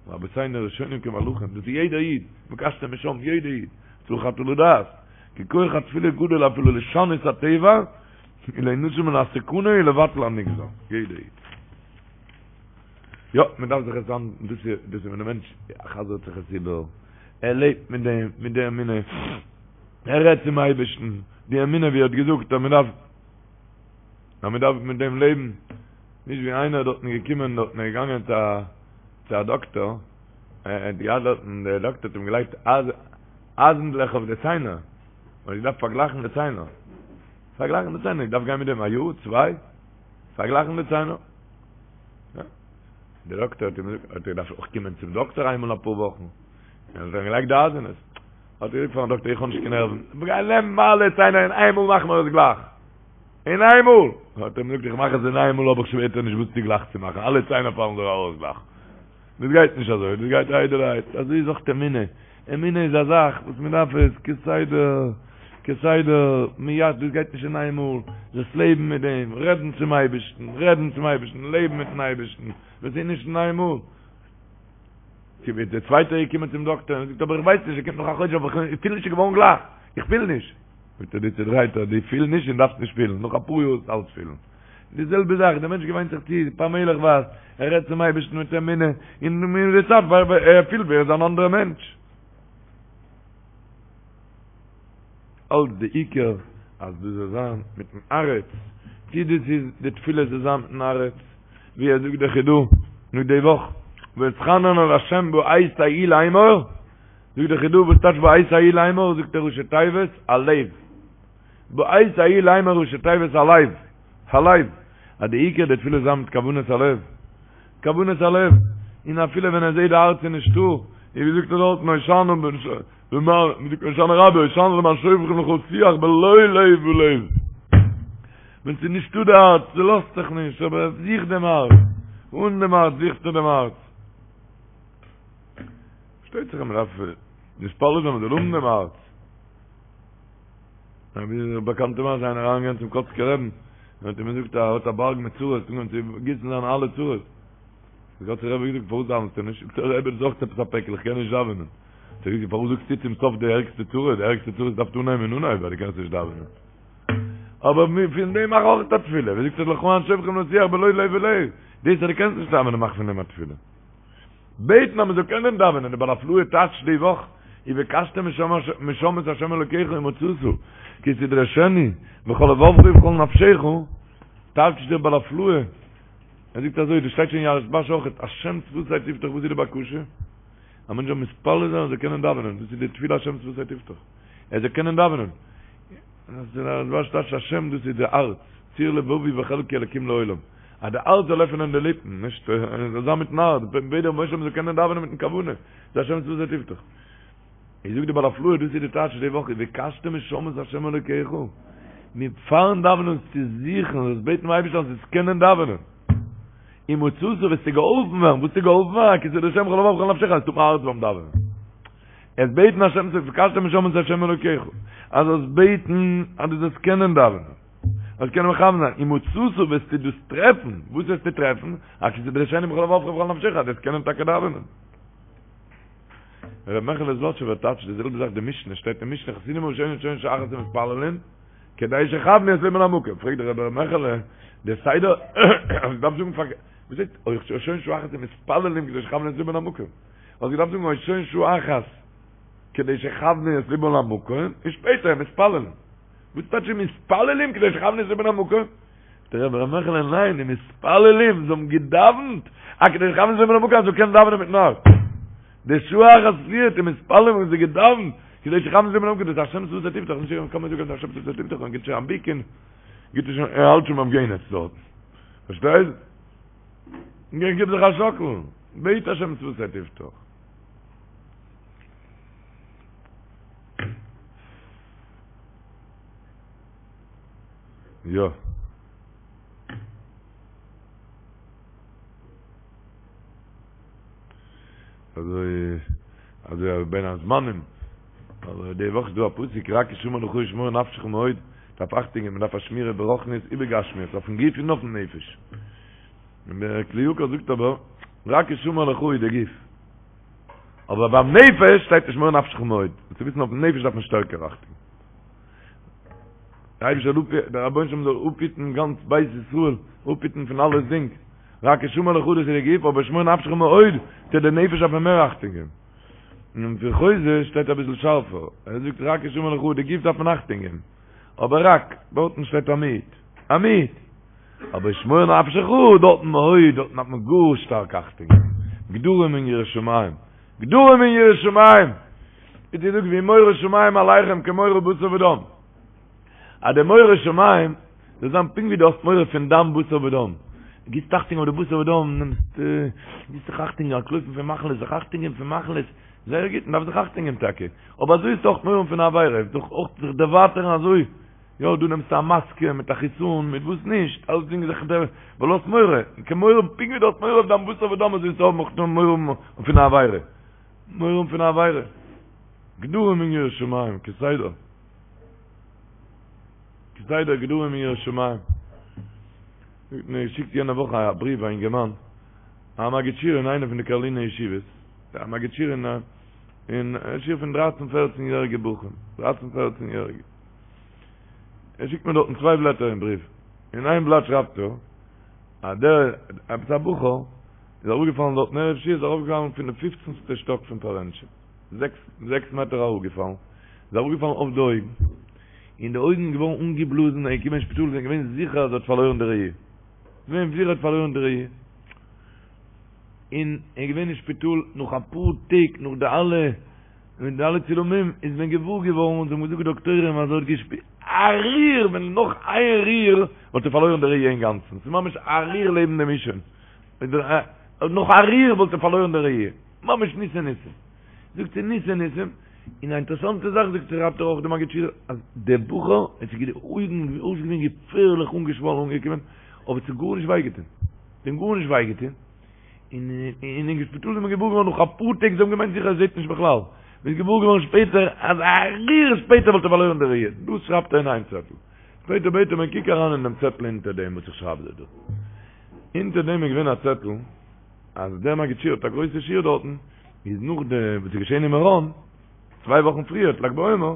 רבותינו הראשונים כמלאכים, דאס איז יעדער איד, ובקשתם משם, יעדער איד, צריך אתה לדעת, כי כח התפילה גדול אפילו לשנות הטבע ולהינצל מן הסכנה ולבטל הנגזר, יעדער איד. יא, מען דארף זיך עס אן, דאס איז, דאס איז ווען דער מענטש חזר'ט זיך עס איבער, ער לעבט מיט דעם, מיט די אמונה, ער רעדט צום אייבערשטן, די אמונה ווי ער האט געזאגט אז מען דארף, אז מען דארף מיט דעם לעבן, נישט ווי איינער דארטן געקומען דארטן ער איז געגאנגען צו א, צו א דאקטער, ער האט געהאט דארטן, דער דאקטער האט אים געלייגט אייזנדלעך אויף די ציינער, מען האט געדארפט פארגלייכן די ציינער, פארגלייכן די ציינער, געדארפט גיין מיט דעם א יאר, צוויי, פארגלייכן די ציינער. דער דאקטער האט אים געזאגט, האט ער געדארפט אויך קומען צום דאקטער איינמאל אפאר וואכן, און האט אים געלייגט די אייזענעס. האט ער געזאגט פארן דאקטער, איך האב נישט קיין נערוון, גיי נעם אלע ציינער אין איינמאל מאך מיר עס גלייך. אין איינמאל! האט ער אים געזאגט, איך מאך עס אין איינמאל האב איך שפעטער נישט וואס צו גלייך צו מאכן, אלע ציינער פאלן דיר ארויס גלייך. דאס גייט נישט אזוי, דאס גייט איידעלערהייט, אזוי איז אויך אמונה, אמונה איז א זאך וואס מען דארף עס כסדר, כסדר, מיד, דאס גייט נישט אין איין מאל, דאס לעבן מיט דעם, רעדן צום אייבערשטן, רעדן צום אייבערשטן, לעבן מיטן אייבערשטן, דאס איז נישט אין איין מאל. דער צווייטער איז געקומען צום דאקטער און זאגט אבער איך ווייס נישט, ער קומט נאך א חודש אבער איך פיל נישט ס'איז געווארן גלייך, איך פיל נישט. זאגט ער דו צודרייטער, דו פיל נישט און דארפסט נישט פילן, נאך אפאר יאר וועסטו אלץ פילן. די זעלבע זאך, דער מענטש געוויינט זיך צו, פאמעליכווייז, ער רעדט צום אייבערשטן מיט אמונה, און מיט די צייט ער פילט ווי ער איז אן אנדערע מענטש. אלץ די עיקר אז דאס זאל זיין מיטן הארץ, צי דאס איז די תפילה זאל זיין מיטן הארץ, ווי ער זאגט דער חידא נאך די וואך, ואתחנן אל ה' בעת ההיא לאמור, זאגט דער חידא וואס טייטש בעת ההיא לאמור, זאגט ער ראשי תיבות הלב, בעת ההיא לאמור ראשי תיבות הלב, הלב, אז די עיקר די תפילה זאל זיין מיט כוונת הלב, כוונת הלב, און אפילו ווען ער זעט די הארץ איז נישטא, און ווי זאגט ער דארטן הושענא הושענא רבה, הושענא למען שופכים לך שיח בלא לב ולב. ווען ס'איז נישטא די הארץ, ס'לאזט זיך נישט, אבער זוך דעם הארץ, אן דעם הארץ זוכסטו דעם הארץ. פארשטייט זיך אז מ'דארף מתפלל זיין מ'זאל האבן דעם הארץ. ווי די באקאנטע מעשה איינער אריינגעגאנגען צום קאצקער רעבן, און האט אים געזאגט אז ער האט א בארג מיט צרות, אנגעהויבן צו גיסן זיינע אלע צרות. דער קאצקער רבי האט געזאגט, פארוואס דאווענסטו נישט? זאגט ער, רבי, דאס איז אויך עפעס א פעקל, איך קען נישט דאווענען. האט ער געזאגט, פארוואס זאגסטו צום סוף די ערגסטע צרה? די ערגסטע צרות דארפסטו אנהייבן אין אנהייב, ווייל דו קענסט נישט דאווענען. אבער פון דעם מאך אויך א תפילה. ווי זאגט ער, לך למען שופכים לשיח בלא לב ולב. דאס אז דו קענסט נישט דאווענען, מאך פון דעם א תפילה. בעטן אז מען זאל קענען דאווענען, די בעל הפלאה טייטשט די וואך, ובקשתם משם את ה' אלוקיך ומצאת, כי תדרשנו בכל לבבך ובכל נפשך, טייטשט דער בעל הפלאה, ער זאגט אזוי, דאס שטייט שוין אין יערות דבש אויכעט, השם שפתי תפתח, וואס איז די בקשה? א מענטש זאל מתפלל זיין ער זאל קענען דאווענען, דאס איז די תפילה השם שפתי תפתח, ער זאל קענען דאווענען. דער דבש טייטשט השם דאס איז די הארץ, צור לבבי וחלקי אלקים לעולם, אז די הארץ זאל עפענען די ליפן, נישט זאל זיין מיטן הארץ, בעט דער רבונו של עולם מ'זאל קענען דאווענען מיטן כוונה, איז השם שפתי תפתח. איז זאגט די בעל הפלאה דאס איז די טייטש די וואך ובקשתם משם את השם אלוקיך, מיט פארן דאווענען צו זוכן, זאלסט בעטן דעם אייבערשטן אז זאלסט קענען דאווענען. ומצאת וועסטו געהאלפן ווערן, וואס וועסטו געהאלפן ווערן? כי תדרשנו בכל לבבך ובכל נפשך, אז ס'טוט מיר הארץ ביים דאווענען. עס בעטן השם צו ובקשתם משם את השם אלוקיך, אז זאלסט בעטן אז דו זאלסט קענען דאווענען, זאלסט קענען מכוון זיין, ומצאת וועסטו דאס טרעפן, וואס וועסטו טרעפן? אז כי תדרשנו בכל לבבך ובכל נפשך, אז דו וועסט קענען טאקע דאווענען. ר' מעכעלע זלאטשובער טייטשט די זעלבע זאך די משנה, שטייט אין משנה חסידים הראשונים שוהין שעה אחת ומתפללין, כדי שיכוונו את לבם למקום, פרעגט דער רבי ר' מעכעלע, דער סדר, האסט געדארפט זאגן פארקערט, וואס הייסט אויך שוהין שעה אחת ומתפללים כדי שיכוונו את לבם למקום? האסט געדארפט זאגן שוהין שעה אחת כדי שיכוונו את לבם למקום, און שפעטער מתפללים. וואס טייטש מתפללים כדי שיכוונו את לבם למקום? זאגט דער רבי ר' מעכעלע ניין, די מתפללים זיי האבן געדאווענט א כדי שיכוונו את לבם למקום אז זיי קענען דאווענען מיטן הארץ. די שעה אחת פריערט די מתפללים האבן זיי געדאווענט כדי שיכוונו את לבם למקום, דאס איז השם שפתי תפתח, נישט קען מען זאגן השם שפתי תפתח און גיט שוין א ביק און גיט שוין ער האלט שוין ביים גיהנום דארט. פארשטייסט? גיב זיך א שאקל, בעט השם שפתי תפתח. יא. אזוי אזוי בין הזמנים אבער די וואך איז דא א פסוק רק השמר לך ושמור נפשך מאוד דארף אכטונג געבן מ'דארף א שמירה ברוחניות ובגשמיות אויפן גוף און אויפן נפש און דער כלי יקר זאגט אבער רק השמר לך איז די גוף אבער ביים נפש שטייט ושמור נפשך מאוד צו וויסן אויפן נפש דארף מען שטערקער אכטונג דער אייבערשטער זאל אפ דער רבונו של עולם זאל אפהיטן גאנץ בית ישראל, אפהיטן פון אלעס דינג, רק השמר לך דאס איז די גוף, אבער שמור נפשך מאוד, צו די נפש דארף מען מער אכטונג געבן. און פון חוזה שטייט אביסל שארפער, ער זאגט רק השמר לך די גוף דארף מען אכטונג געבן, אבער רק, דארטן שטייט א מיעוט, א מיעוט, אבער שמור נפשך דארטן מאוד, דארטן דארף מען גאר שטארק אכטונג געבן, גדרים אין יראת שמים, גדרים אין יראת שמים! ווי די זאגט והיא מורא שמים עליכם כמורא בשר ודם. אז די מורא שמים זאל זיין פונקט ווי דו האסט מורא פון דיין בשר ודם. גיבסט אכטונג אויף די בשר ודם, נעמסט, גיבסט זיך אכטונג אנטלויפן פון מחלות, זיך אכטונג געבן פון מחלות, זייער גוט, מען דארף זיך אכטונג געבן טאקע, אבער אזוי איז אויך מורא פון א עבירה, דאך אויך זיך דערווייטערן אזוי, יא, דא נעמסטו א מאסקע מיט א חיסון, מיט וואס נישט, אלסדינג זיך דער, ווייל האסט מורא, כמורא, פונקט ווי דו האסט מורא אויף דיין בשר ודם אזוי זאלסטו האבן אויך מורא פון א עבירה. מורא פון א עבירה. גדרים אין יראת שמים, כסדר. כסדר גדרים אין יראת שמים. האט מיר געשיקט יענע וואך א בריוו א אינגערמאן, א מגיד שיעור אין איינע פון די קארלינער ישיבות, א מגיד שיעור אין א, אין א שיעור פון דרייצן פערצן יעריגע בחורים, דרייצן פערצן יעריגע. ער שיקט מיר דארטן צוויי בלעטער אין בריוו. אין איין בלאט שרייבט ער אז דער עפעס א בחור איז אראפגעפאלן דארטן ערב שבועות איז אראפגעפאלן פון די פופצנסטע שטאק פון פארענטשע, זעקס מעטער אראפגעפאלן, איז אראפגעפאלן אויף די אויגן, און די אויגן איז געווארן אנגעבלאזן, ער איז געקומען אין שפיטאל זענען געווען זיכער אז ער האט פארלוירן די ראי', געווען זיכער ער האט פארלוירן די ראי', און ער איז געווען אין שפיטאל נאך אפאר טעג נאך די אלע מיט די אלע צילומים איז מען געוואר געווארן און זיי האבן געזאגט די דאקטוירים אז ער האט געשפירט א ריר ווען נאך איין ריר וואלט ער פארלוירן די ראי' אינגאנצן, ס'איז ממש א ריר לעבן דעם אישון, נאך א ריר וואלט ער פארלוירן די ראי', ממש ניסי ניסים. זאגט זי ניסי ניסים, און א אינטערעסאנטע זאך זאגט זי שרייבט ער אויך די מגיד שיעור אז דער בחור עס איז די אויגן אויסגעווען געפערליך אנגעשוואלן אנגעקומען אבער עס האט גארנישט וויי געטון, עס האט אים גארנישט וויי געטון. און אין שפיטאל איז מען געוואר געווארן נאך אפאר טעג, זיי האבן געמיינט זיכער ער זעט נישט בכלל, מען איז געוואר געווארן שפעטער אז א ריר שפעטער וואלט ער פארלוירן די ראי', דאס שרייבט ער אין איין צעטל, שפעטער בעט ער מיר קוק אריין אין דעם צעטל אונטער דעם וואס איך שרייב דיר דא, אונטער דעם איז געווען א צעטל אז דער מגיד שיעור האט א גרויסע שיעור דארטן, איז נאך די וואס איז געשען אין מירון, צוויי וואכן פריער, לג בעומר,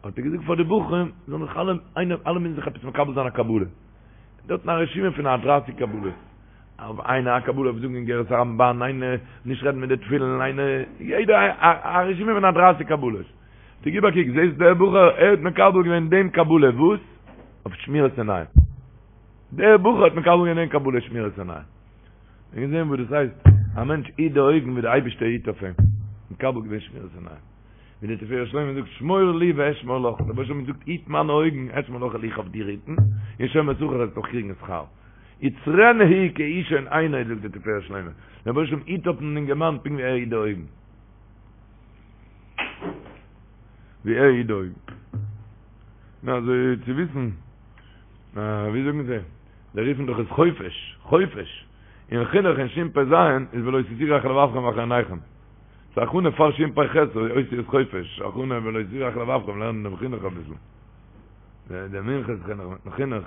האט ער געזאגט פאר די בחורים זאלן זיך אלע, איינער, אלע מוזן זיך עפעס מקבל זיין א קבלה, דארטן א רשימה פון א דרייסיג קבלות. אויף איינער א קבלה אויף זאגן אגרת הרמב"ן, איינער נישט רעדן מיט די תפילין, איינער, יעדער א רשימה פון א דרייסיג קבלות. טא גיב א קוק, זעסט דער בחור, ער האט מקבל געווען דעם קבלה, וואס? אויף שמירת עיניים. דער בחור האט מקבל געווען דעם קבלה שמירת עיניים. און געזען וואס דאס הייסט, א מענטש היט די אויגן ווי דער אייבערשטער היט אויף אים. מקבל געווען שמירת עיניים. ווי דער תפארת שלמה זאגט, שמור לי ואשמור לך. דער רבונו של עולם זאגט, היט מיינע אויגן, אשמור לך, וועל איך אויף דיר היטן, און שומר שכר וועסט אויך קריגן שכר. יצרנו כאישון עינו זאגט דער תפארת שלמה, דער רבונו של עולם היט אויפן אינגערמאן פונקט ווי ער היט די אויגן. ווי ער היט די אויגן. נו אזוי צו וויסן, ווי זאגן זיי, זיי רופן דאך עס חופש, חופש. אין חינוך אין שפ"ז איז ולא תתורו אחרי לבבכם ואחרי עיניכם. ס'איז א הכנה פאר שפ"ח, אותיות חופש, הכנה ולא תתורו אחרי לבבכם, לערנען דעם חינוך אביסל. דער מנחת חינוך מיטן חינוך.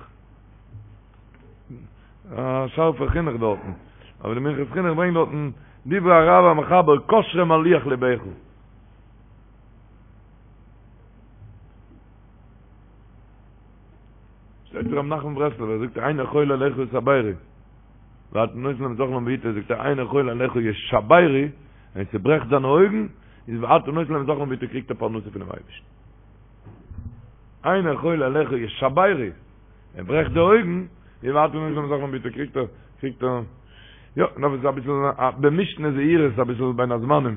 א שארפע חינוך דארטן, אבער די מנחת חינוך ברענגט דארטן דברי הרב המחבר קשרם על לוח לבך. שטייט ר' נחמן ברסלבער זאגט עיני כל אליך יתברו ואתה נותן להם את אכלם בעתו זאגט ער עיני כל אליך ישברו ווען ס'ברעכט זיינע אויגן איז ואתה נותן להם את אכלם בעתו קריגט ער פרנסה פונעם אייבערשטן עיני כל אליך ישברו ער ברעכט די אויגן, ווי ואתה נותן להם את אכלם בעתו קריגט ער, קריגט ער, יא, נאר עס איז אביסל במשנה זהירות אביסל בין הזמנים,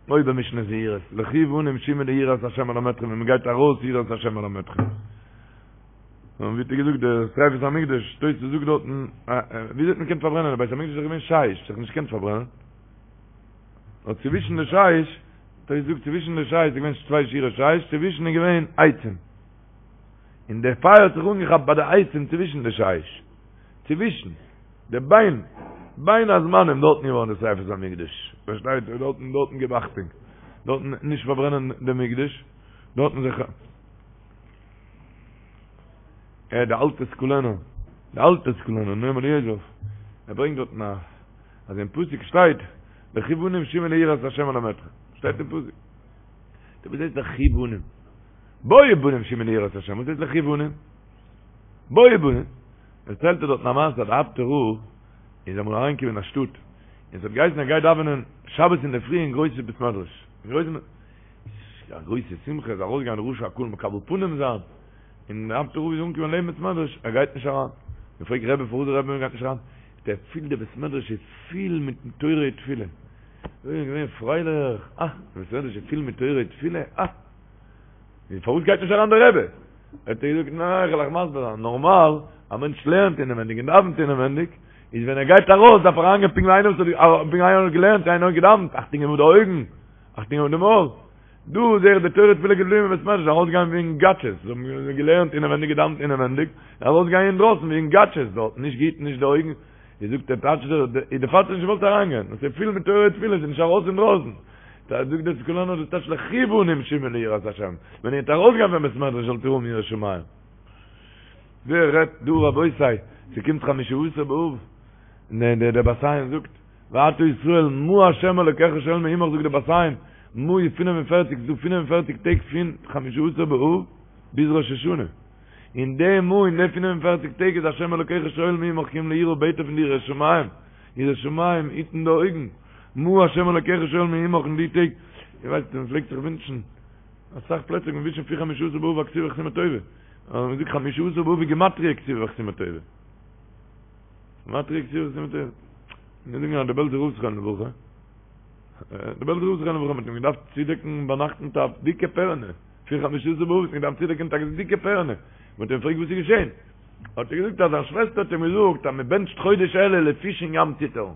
אוי במשנה זהירות, לכו בנים שמעו לי יראת השם אלמדכם, ווען מען גייט ארויס יראת השם אלמדכם. און ווי האט ער געזאגט דער שריפת המקדש, תוס' זאגט דארטן, ווי האט מען געקענט פארברענען, די בית המקדש איז דאך געווען שיש, זיך נישט געקענט פארברענען. נאר צווישן די שיש, תוס' זאגט צווישן די שיש איז געווען צוויי שורות שיש, צווישן איז געווען עצים. און דער פייער האט זיך אנגעכאפט ביי די עצים צווישן די שיש, צווישן די בין, בין הזמנים דארטן געווארן די שריפת המקדש, פארשטייט איר, דארטן, דארטן גיב אכטונג, דארטן נישט פארברענען די מקדש, דארטן זיך, אה, די אלטע סקולענער, די אלטע סקולענער, נועם אליעזר, ער ברענגט דארטן א, אז אין פסוק שטייט, לכו בנים שמעו לי יראת השם אלמדכם, שטייט אין פסוק, דו וואס הייסט לכו בנים? בואו בנים שמעו לי יראת השם, וואס הייסט לכו בנים? בואו בנים. דערציילט ער דארטן א מעשה אז די אפטער רב איז אמאל אריינגעקומען אין א שטאט, און ס'האט געהייסן ער גייט דאווענען שבת אינדערפרי אין גרויסע בית מדרש, אין גרויסן, א גרויסע שמחה, איז ארויסגעגאנגען ראשי הקהל מקבל פנים זיין, און די אפטער רב איז אנגעקומען לעבן בית מדרש, ער גייט נישט אריין. מען פרעגט רבי פארוואס דער רבי גייט נישט אריין? זאגט ער, ער פילט די בית מדרש איז פיל מיט תורה ותפילה. אוי געווען פרייליך, אה, די בית מדרש איז פיל מיט תורה ותפילה, אה. און פארוואס גייט נישט אריין דער רבי? האט ער געזאגט, ניין, איך וועל אייך מסביר זיין, נארמאל, א מענטש לערנט אינעווענדיג און דאווענט אינעווענדיג, איז ווען ער גייט ארויס דארף ער אריינגיין פונקט ווי איינער וואס האט פונקט ווי איינער האט געלערנט, איינער האט געדאווענט, אכטונג געבן אויף די אויגן, אכטונג געבן אויף די מויל. דא זעה איך די תורה תפילה געבליבן אין בית מדרש, ארויסגיין ווי יונגאטשעס, זיי האבן געלערנט אינעווענדיג געדאווענט אינעווענדיג, ארויסגיין אינדרויסן ווי יונגאטשעס דארט, נישט געהיטן נישט די אויגן, ווי זאגט דער טייטש דער איז דערפאר האט ער נישט געוואלט אריינגיין, עס איז פיל מיט תורה ותפילה, עס איז נישט ארויס אינדרויסן. זאגט דער סקולענער דאס טייטש לכו בנים שמעו לי יראת השם, ווען איר וועט ארויסגיין פון בית מדרש זאלט איר האבן יראת שמים. ווער רעדט דא רבותי, ס'קומט חמשה עשר באב, און דער בת עין זאגט, ועתה ישראל מה ה' אלוקיך שואל מעמך זאגט דער בת עין, מה איז פינף און פערציג, ס'דא פינף און פערציג טעג פון חמשה עשר באב ביז ראש השנה. אין די מה אין די 45 טעג איז השם אלוקיך שואל מעמך כי אם ליראה בעט ער פון דיר יראת שמים, יראת שמים, היטן די אויגן, מה השם אלוקיך שואל מעמך אין די טעג, איר ווייסט מען פלעגט זיך ווינטשן, אסאך פלעצער מען ווינטשן פון חמשה עשר באב א כתיבה וחתימה טובה, אבער מען זאגט חמשה עשר באב איז גימטריא כתיבה וחתימה טובה. גימטריא כתיבה וחתימה טובה. מיר זאגן אז דער בעלזער רב זכרונו לברכה, דער בעלזער רב זכרונו לברכה מ'האט אים געדארפט צודעקן ביינאכט מיט א דיקע פערענע, פון חמשה עשר באב האט מען געדארפט צודעקן מיט א דיקע פערענע, מען האט אים געפרעגט וואס איז געשען, האט ער געזאגט אז זיין שוועסטער האט אים געזאגט אז מען בענטשט חודש אלול די פיש אין ים ציטערן,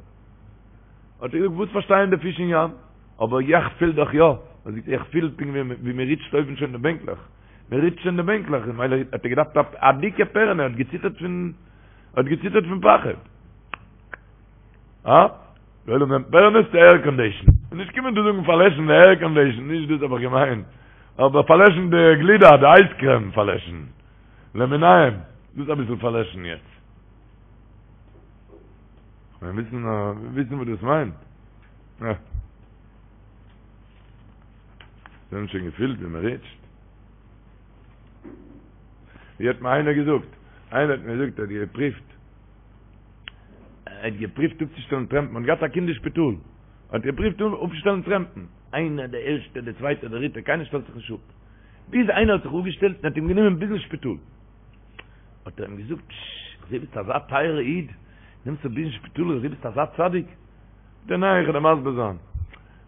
האט ער געזאגט וואס פארשטייען די פיש אין ים, אבער יעך פיל דאך יא, האט ער געזאגט איך פיל פונקט ווי מען ריטשט אויבן שוין די בענקלעך, מען ריטשט שוין די בענקלעך, ממילא האט ער געדארפט א דיקע פערענע, האט געציטערט פון האט געציטערט פון פחד. אה? די עולם נעמט פערענעס צו עירקאנדישן. נישט קומען דא זאגן פארלעשן די עירקאנדישן, נישט דאס האב איך געמיינט. אבער פארלעשן די גלידה, די אייזקרעם פארלעשן. למיניהם. דאס אביסל פארלעשן יעצט. כ'מיין וויסן וויסן וואס דאס מיינט. אה. זיי האבן שוין געפילט ווי מ'ריטשט. ווי האט מיר איינער געזאגט? איינער האט מיר געזאגט ער האט געפריווט ער האט געפריווט אפצושטעלן טרעמפן, האט געהאט א קינד אין שפיטאל, האט געפריווט אפצושטעלן טרעמפן, איינער דער ערשטער דער צווייטער דער דריטער, קיינער שטעלט זיך נישט אפ, ביז איינער האט זיך אפגעשטעלט און האט אים גענומען ביזן שפיטאל, האט ער אים געזאגט, פשש, איך זעה ביסט אזא טייערע איד, נעמסט אפ ביזן שפיטאל, איך זעה ביסט אזא צדיק, זאגט ער ניין, איך וועל דיר מסביר זיין,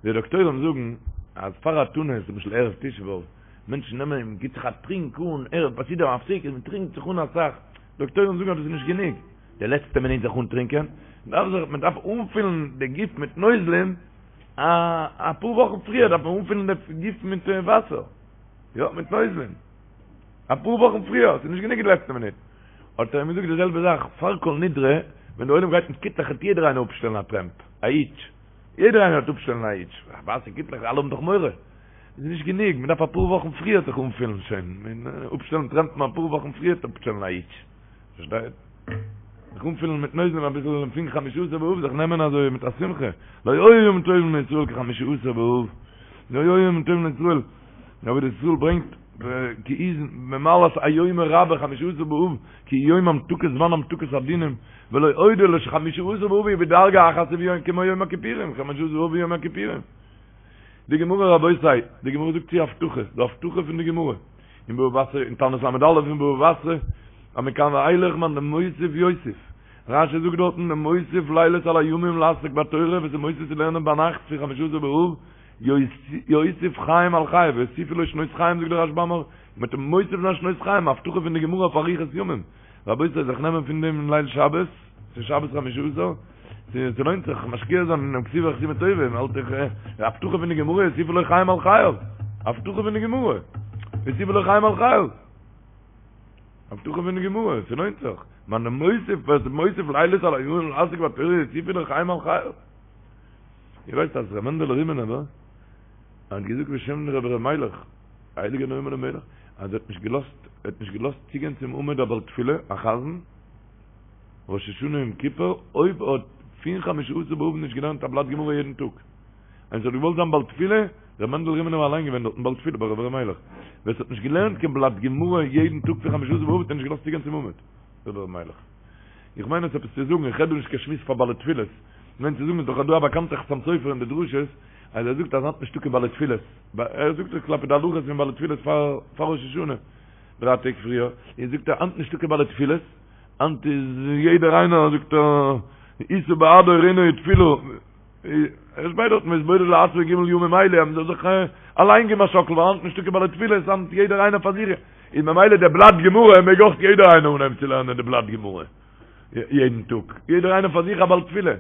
די דאקטוירים זאגן אז פאר א תענית, למשל ערב תשעה באב, מענטשן נעמען און מ'גיט זיך א טרינק אן, ערב ביי סעודה המפסקת, מען טרינקט זיך אן אסאך, דאקטוירים זאגן אז דאס איז נישט גענוג, די לעצטע מינוט זיך אנטרינקען, מען דארף זיך, מען דארף אנפילן די גוף מיט נוזלים, א אפאר וואכן פריער דארף מען אנפילן די גוף מיט וואסער, יא, מיט נוזלים, אפאר וואכן פריער, ס'איז נישט גענוג די לעצטע מינוט. האט ער אים געזאגט די זעלבע זאך, פאר כל נדרי, ווען די עולם גייט מיט קיטלעך וועט יעדער איינער אפשטעלן א טרעמפ, א היטש, יעדער איינער וועט אפשטעלן א היטש, ווייסע קיטלעך, אלע האבן דאך מורא. איז נישט גענוג, מען דארף אפאר וואכן פריער זיך אנפילן שוין, אפשטעלן טרעמפן אפאר וואכן פריער אפשטעלן א היטש, פארשטייט? זיך אנפילן מיט נוזלים אביסל פון חמשה עשר באב זיך נעמען אזוי מיט א שמחה, לא היו ימים טובים לישראל כחמשה עשר באב, לא היו ימים טובים לישראל, דער עבודת ישראל ברענגט כי איז במעלת היום הרבה חמשה עשר באב, כי יום המתקת זמן המתקת הדינים, ולא עוד אלא שחמשה עשר באב הוא בדרגה אחת כמו יום הכיפורים, חמשה עשר באב ויום הכיפורים. די גמרא רבותי, די גמרא זאגט צו הבטחה, די הבטחה פון די גמרא, אין בבא בתרא, אין תענית ל"א אין בבא בתרא, אז מכאן ואילך מאן דמוסיף יוסיף, רש"י זאגט דארטן דמוסיף לילות על הימים לעסוק בתורה, וואס איז מוסיף צו לערנען ביינאכט פון חמשה עשר באב, יוסיף חיים על חייו, ויוסיפו לו שנות חיים זאגט דער רשב"ם, מ'וועט אים מוסיף זיין שנות חיים, א הבטחה פון די גמרא אויף אריכות ימים. רבותי זיך נעמען פון דעם אין ליל שבת, ס'איז שבת חמשה עשר, ס'לוינט זיך משקיע זיין אינעם כתיבה וחתימה טובה, מ'האלט זיך, די הבטחה פון די גמרא יוסיפו לו חיים על חייו, הבטחה פון די גמרא, יוסיפו לו חיים על חייו, הבטחה פון די גמרא, ס'לוינט זיך, מאן דמוסיף, ווער ס'איז מוסיף לילות על הימים לעסוק בתורה יוסיפו לו חיים על חייו. איר ווייסט אז ר' מענדעלע רימינובער האט געזאגט בשם רבי ר' מיילעך, הייליגער נועם אלימלך, אז ער האט נישט געלאזט, ער האט נישט געלאזט צוגיין צום עמוד א בעל תפילה, א חזן, ראש השנה יום כיפור, אויב ער האט פון חמשה עשר באב נישט געלערנט א בלאט גמרא יעדן טאג. ווען ס'האט געוואלט זיין בעל תפילה, ר' מענדל רימינובער אליין געווען דארטן בעל תפילה ביי רבי ר' מיילעך, ווער ס'האט נישט געלערנט קיין בלאט גמרא יעדן טאג פון חמשה עשר באב האט ער נישט געלאזט צוגיין צום עמוד, רבי ר' מיילעך. איך מיין עס עפעס צו זאגן, איך רעד דא נישט קיין שמועס פאר בעלי תפילות, איך מיין צו זאגן איז דאך דא א באקאנטע חתם סופר אין די דרשות, אז ער זאגט אז היינט נישטא קיין בעלי תפילות, ער זאגט עס כלפי די הלכות פון בעלי תפילות פאר פאר ראש השנה, דריי טעג פריער, און זאגט ער היינט נישטא קיין בעלי תפילות, היינט איז יעדער איינער זאגט ער ישא בעדו רינה ותפילה, ער שפייט דארטן והתבודד לעצמו ג' ימים אלה, אז מען זאל זיך אליין געבן א שאקל, ווייל היינט נישטא קיין בעלי תפילות, היינט יעדער איינער פאר זיך, און ממילא דער בלאט גמרא מעג אויך יעדער איינער אנהייבן צו לערנען די בלאט גמרא יעדן טאג, יעדער איינער פאר זיך א בעל תפילה.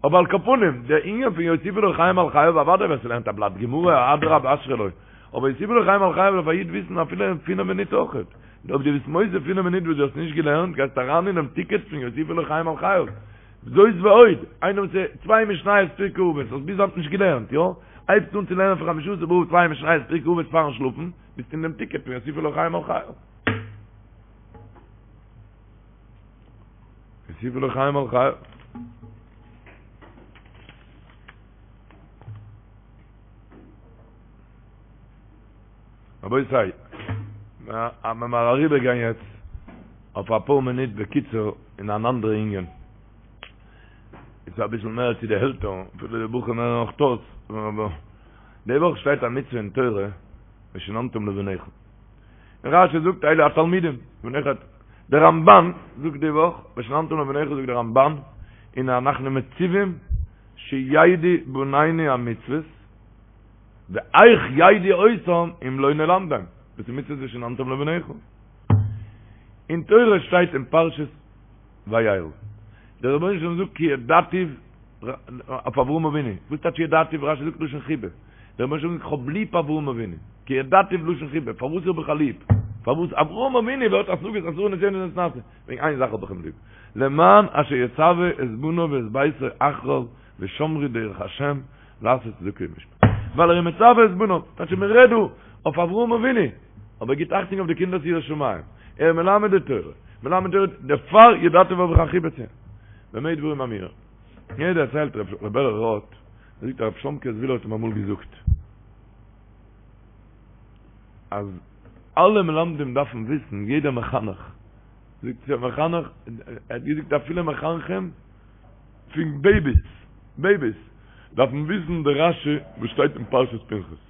אבער על כל פנים, דער ענין פון יוסיפו לו חיים על חייו, אוודאי ווער ס'לערנט א בלאט גמרא, אדרבה אשרי לו, אבער יוסיפו לו חיים על חייו דארף א איד וויסן אפילו אין פינף מינוט אויכעט, אויב דו ביסט מוסיף פינף מינוט וואס דו האסט נישט געלערנט, גייסטו אריין אינעם טיקעט פון יוסיפו לו חיים על חייו. זאת ועוד, איינער וואס איז צוויי משניות פרקי אבות, האסט ביז היינט נישט געלערנט, יא? הייבסט אן צו לערנען פון חמשה עשר באב צוויי משניות פרקי אבות פארן שלאפן, ביסט אין דעם טיקעט פון יוסיפו לו חיים על חייו. יוסיפו לו חיים על חייו. רבותי, מיר אריבערגיין יעצט אויף אפאר מינוט בקיצור אין אן אנדערע ענין. איז אביסל מער צו די עלטערן, אפילו די בחורים הערן אויך אויס, אבער די וואך שטייט א מצוה אין תורה, ושננתם לבניך. און רשי זאגט אלו התלמידים, בניך, דער רמבן זאגט די וואך, ושננתם לבניך זאגט דער רמבן, הנה אנחנו מצווים שידעו בנינו המצוות, ואיך ידעו אותם אם לא נלמדם, דאס איז מצוות ושננתם לבניך. אין תורה שטייט אין פרשת וירא. דער רבונו של עולם זאגט כי ידעתיו אויף אברהם אבינו. וואס טייטש ידעתיו? רשי זאגט לשון חיבה. דער רבונו של עולם זאגט איך האב ליב אברהם אבינו. כי ידעתיו לשון חיבה. פארוואס האב איך אים ליב? פארוואס אברהם אבינו ווערט השגות עשרה נסיונות נתנסה? וועגן איין זאך האב איך אים ליב. למען אשר יצוה את בניו ואת ביתו אחריו ושמרו דרך השם לעשות צדקה ומשפט. ווייל ער איז מצוה את בניו. טייטש מען רעדט דא אויף אברהם אבינו. אבער ער גיט אכטונג אויף די קינדער'ס יראת שמים. ער איז מלמד די תורה. מלמד תורה, דערפאר ידעתיו האב איך א חיבה צו אים. במה דברים אמורים. מיר דערציילט ר' בערל ראטה, ער זאגט אז ר' שלומקע זוויהלער האט אים אמאל געזאגט אז אלע מלמדים דארפן וויסן, יעדער מחנך, זאגט ער מחנך, ער האט געזאגט אפילו מחנכים פון בעיביס, בעיביס, דארפן וויסן די רשי וואס שטייט אין פרשת פנחס.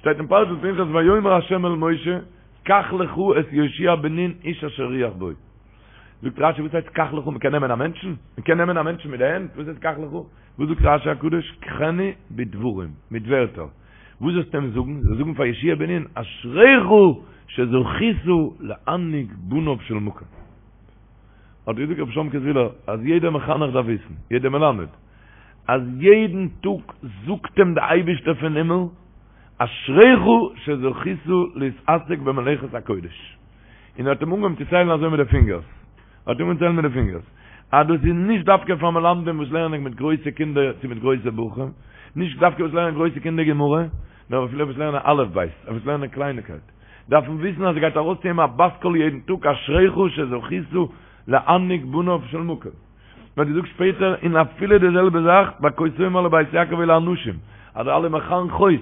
שטייט אין פרשת פנחס ויאמר ה' אל משה קח לך את יהושע בן נון איש אשר רוח בו. זאגט רשי וואס הייסט קח לך מ'קען נעמען א מענטשן? מ'קען נעמען א מענטשן מיט די הענט? וואס הייסט קח לך? וואס זאגט רשי הקדוש קחנו בדברים מיט ווערטער. וואס זאלסטו אים זאגן? זאלסט זאגן פאר יהושע בן נון אשריך שזכית להנהיג בניו של מקום. האט געזאגט רבי שלומקע זוויהלער אז יעדער מחנך דארף וויסן, יעדער מלמד, אז יעדן טאג זאגט אים די אייבישטער פון הימל, אשריך שזכית להתעסק במלאכת הקודש. און ער האט אים אנגעהויבן צו ציילן אזוי מיט די פינגערס, ער האט אנגעהויבן ציילן מיט די פינגערס, אז דאס איז נישט דווקא פאר מלמדים וואס לערנען מיט גרויסע קינדער צו מיט גרויסע בחורים, נישט דווקא וואס לערנען גרויסע קינדער גמרא, נאר אפילו וואס לערנען אלף בית, וואס לערנען קלייניקייט, דארפן וויסן אז עס גייט ארויס צו אים א בת קול יעדן טאג אשריך שזכית להנהיג בניו של מקום. מען האט געזאגט שפעטער און אפילו די זעלבע זאך ביי כה תאמר לבית יעקב אלו האנשים אז די אלע מחנכות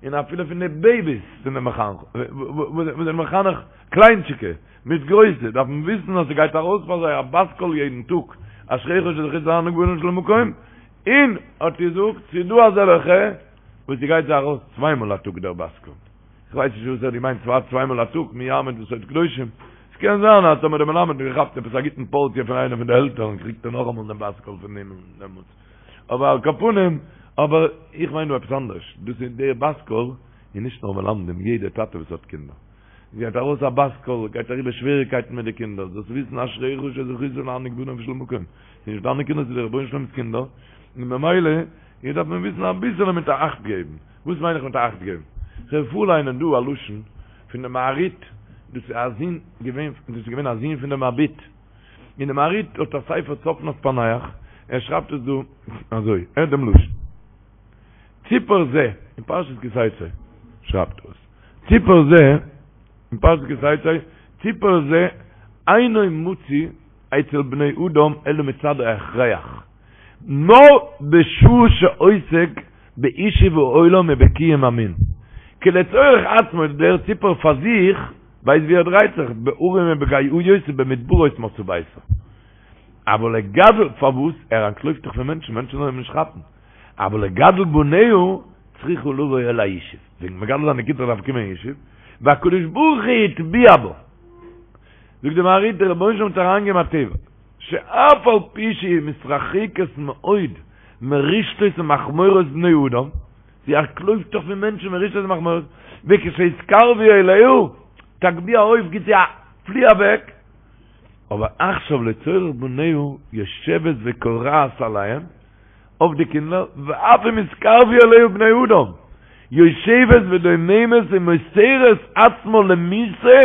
און אפילו פון די בעיביס פון די מחנכות וואס זענען מחנך קליינטשיקע מיט גרויסע דארפן וויסן אז ס'גייט ארויס פאר זיי א בת קול יעדן טאג אשריך שזכית להנהיג בניו של מקום און האט געזאגט ס'איז דא אזעלעכע וואס ס'גייט זיי ארויס צוויי מאל א טאג דער בת קול. כ'ווייס נישט וואס ער האט געמיינט צוויי צוויי מאל א טאג, מי יעמוד בסוד קדושים. ס'קען זיין אז טאמער דער מלמד האט געכאפט עפעס א גוטן פארציע פון איינע פון די עלטערן קריגט ער נאכאמאל דעם בת קול פון הימל דעמאלטס. אבער על כל פנים, אבער איך מיין דא עפעס אנדערש, דאס איז דער בת קול איז נישט נאר מלמדים, יעדער טאטע וואס האט קינדער. גייט ארויס א בת קול, גייט אריבער שוועריגקייטן מיט די קינדער, זאלסט וויסן אשריך שזכית להנהיג בניו של מקום. ס'איז נישט דיינע קינדער, ס'איז דער רבונו של עולם'ס קינדער, און ממילא איז דארף מען וויסן אביסעלע מיט א אכט געבן. וואס מיין איך מיט אכט געבן? כ'וועל פארליינען דא א לשון פון די מהרי"ט, דאס איז א זון געווען, דאס איז געווען א זון פון די מבי"ט, און די מהרי"ט האט א ספר צפנת פענח, ער שרייבט עס דא אזוי, הערט דעם לשון, ציפור זה, אין פרשת כי תצא שרייבט ער עס, ציפור זה, אין פרשת כי תצא, ציפור זה אינו מצוי אצל בני אדם אלא מצד ההכרח. נאר בשעה שעוסק בישוב העולם ובקיום המין. כי לצורך עצמו דער ציפור פאר זיך ווייסט ווי ער דרייט זיך, בהרים ובגאיות ובמדברות מצא ביתו. אבל לגדל, פארוואס? ער אנטלויפט דאך פון מענטשן, מענטשן זאלן אים נישט כאפן. אבל לגדל בניה צריכה לבוא אל הישוב. וועגן מגדל זיין די קינדער דארף קומען אין ישוב. והקדוש ברוך הוא הטביע בה. זאגט די מהרי"ט דער רבונו של עולם האט אריינגעגעבן א טבע. שאף על פי שהיא מתרחקת מאוד מרשתות ומכמורות בני אדם, זי אנטלויפט דאך פון מענטשן מרשתות ומכמורות, וכשיתקרבו אליה, תגביה עוף גיט זי א פלי אוועק, אבער עכשיו לצורך בניה יושבת וכורעת עליהם, אויף די קינדער, ואף אם יתקרבו אליה בני אדם, יושבת ודוממת ומוסרת עצמה למיתה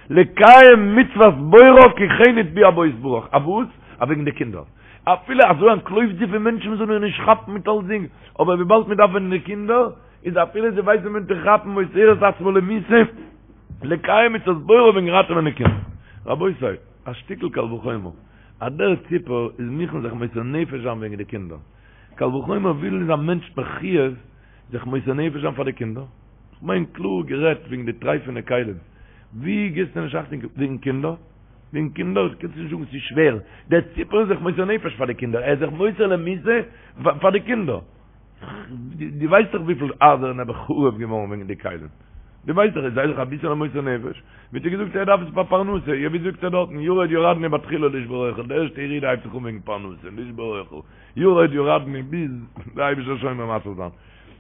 לקיים מצוות בוראה כי כן הטביע בה יתברך, אויף וואס? אויף וועגן די קינדער. אפילו אזוי אנטלויפט זי פון מענטשן מען זאל איר נישט כאפן מיט אלסדינג, אבער וויבאלד מען דארף וועגן די קינדער, איז אפילו זי ווייסט ווען צו כאפן מוסרת עצמה למיתה לקיים מצוות בוראה וועגן ראטעווען די קינדער. רבותי, א שטיקל קל וחומר. אז דער ציפור איז מוכן זיך מוסר נפש זיין וועגן די קינדער. קל וחומר וויפיל איז א מענטש מחויב זיך מוסר נפש זיין פאר די קינדער. כ'מיין קלאר גערעדט וועגן די טרייפענע כלים. ווי גיבסטו נישט אכטונג וועגן קינדער? וועגן קינדער קענסטו נישט זאגן ס'איז שווער, דער ציפור איז זיך מוסר נפש פאר די קינדער, ער איז זיך מוסר למיתה פאר די קינדער. דו ווייסט דאך וויפיל הייזער נעבעך חרוב געווארן וועגן די כלים. דו ווייסט דאך, זיי זיך אביסעלע מוסר נפש. ווי האט ער געזאגט ער דארף עס פאר פרנסה, יא ווי זאגט ער דארטן, ירד ירדנו בתחילה לשבור אוכל, די ערשטע ירידה הייבט זיך אן וועגן פרנסה, לשבור אוכל, ירד ירדנו ביז די אייבישטער שומר ומציל זיין.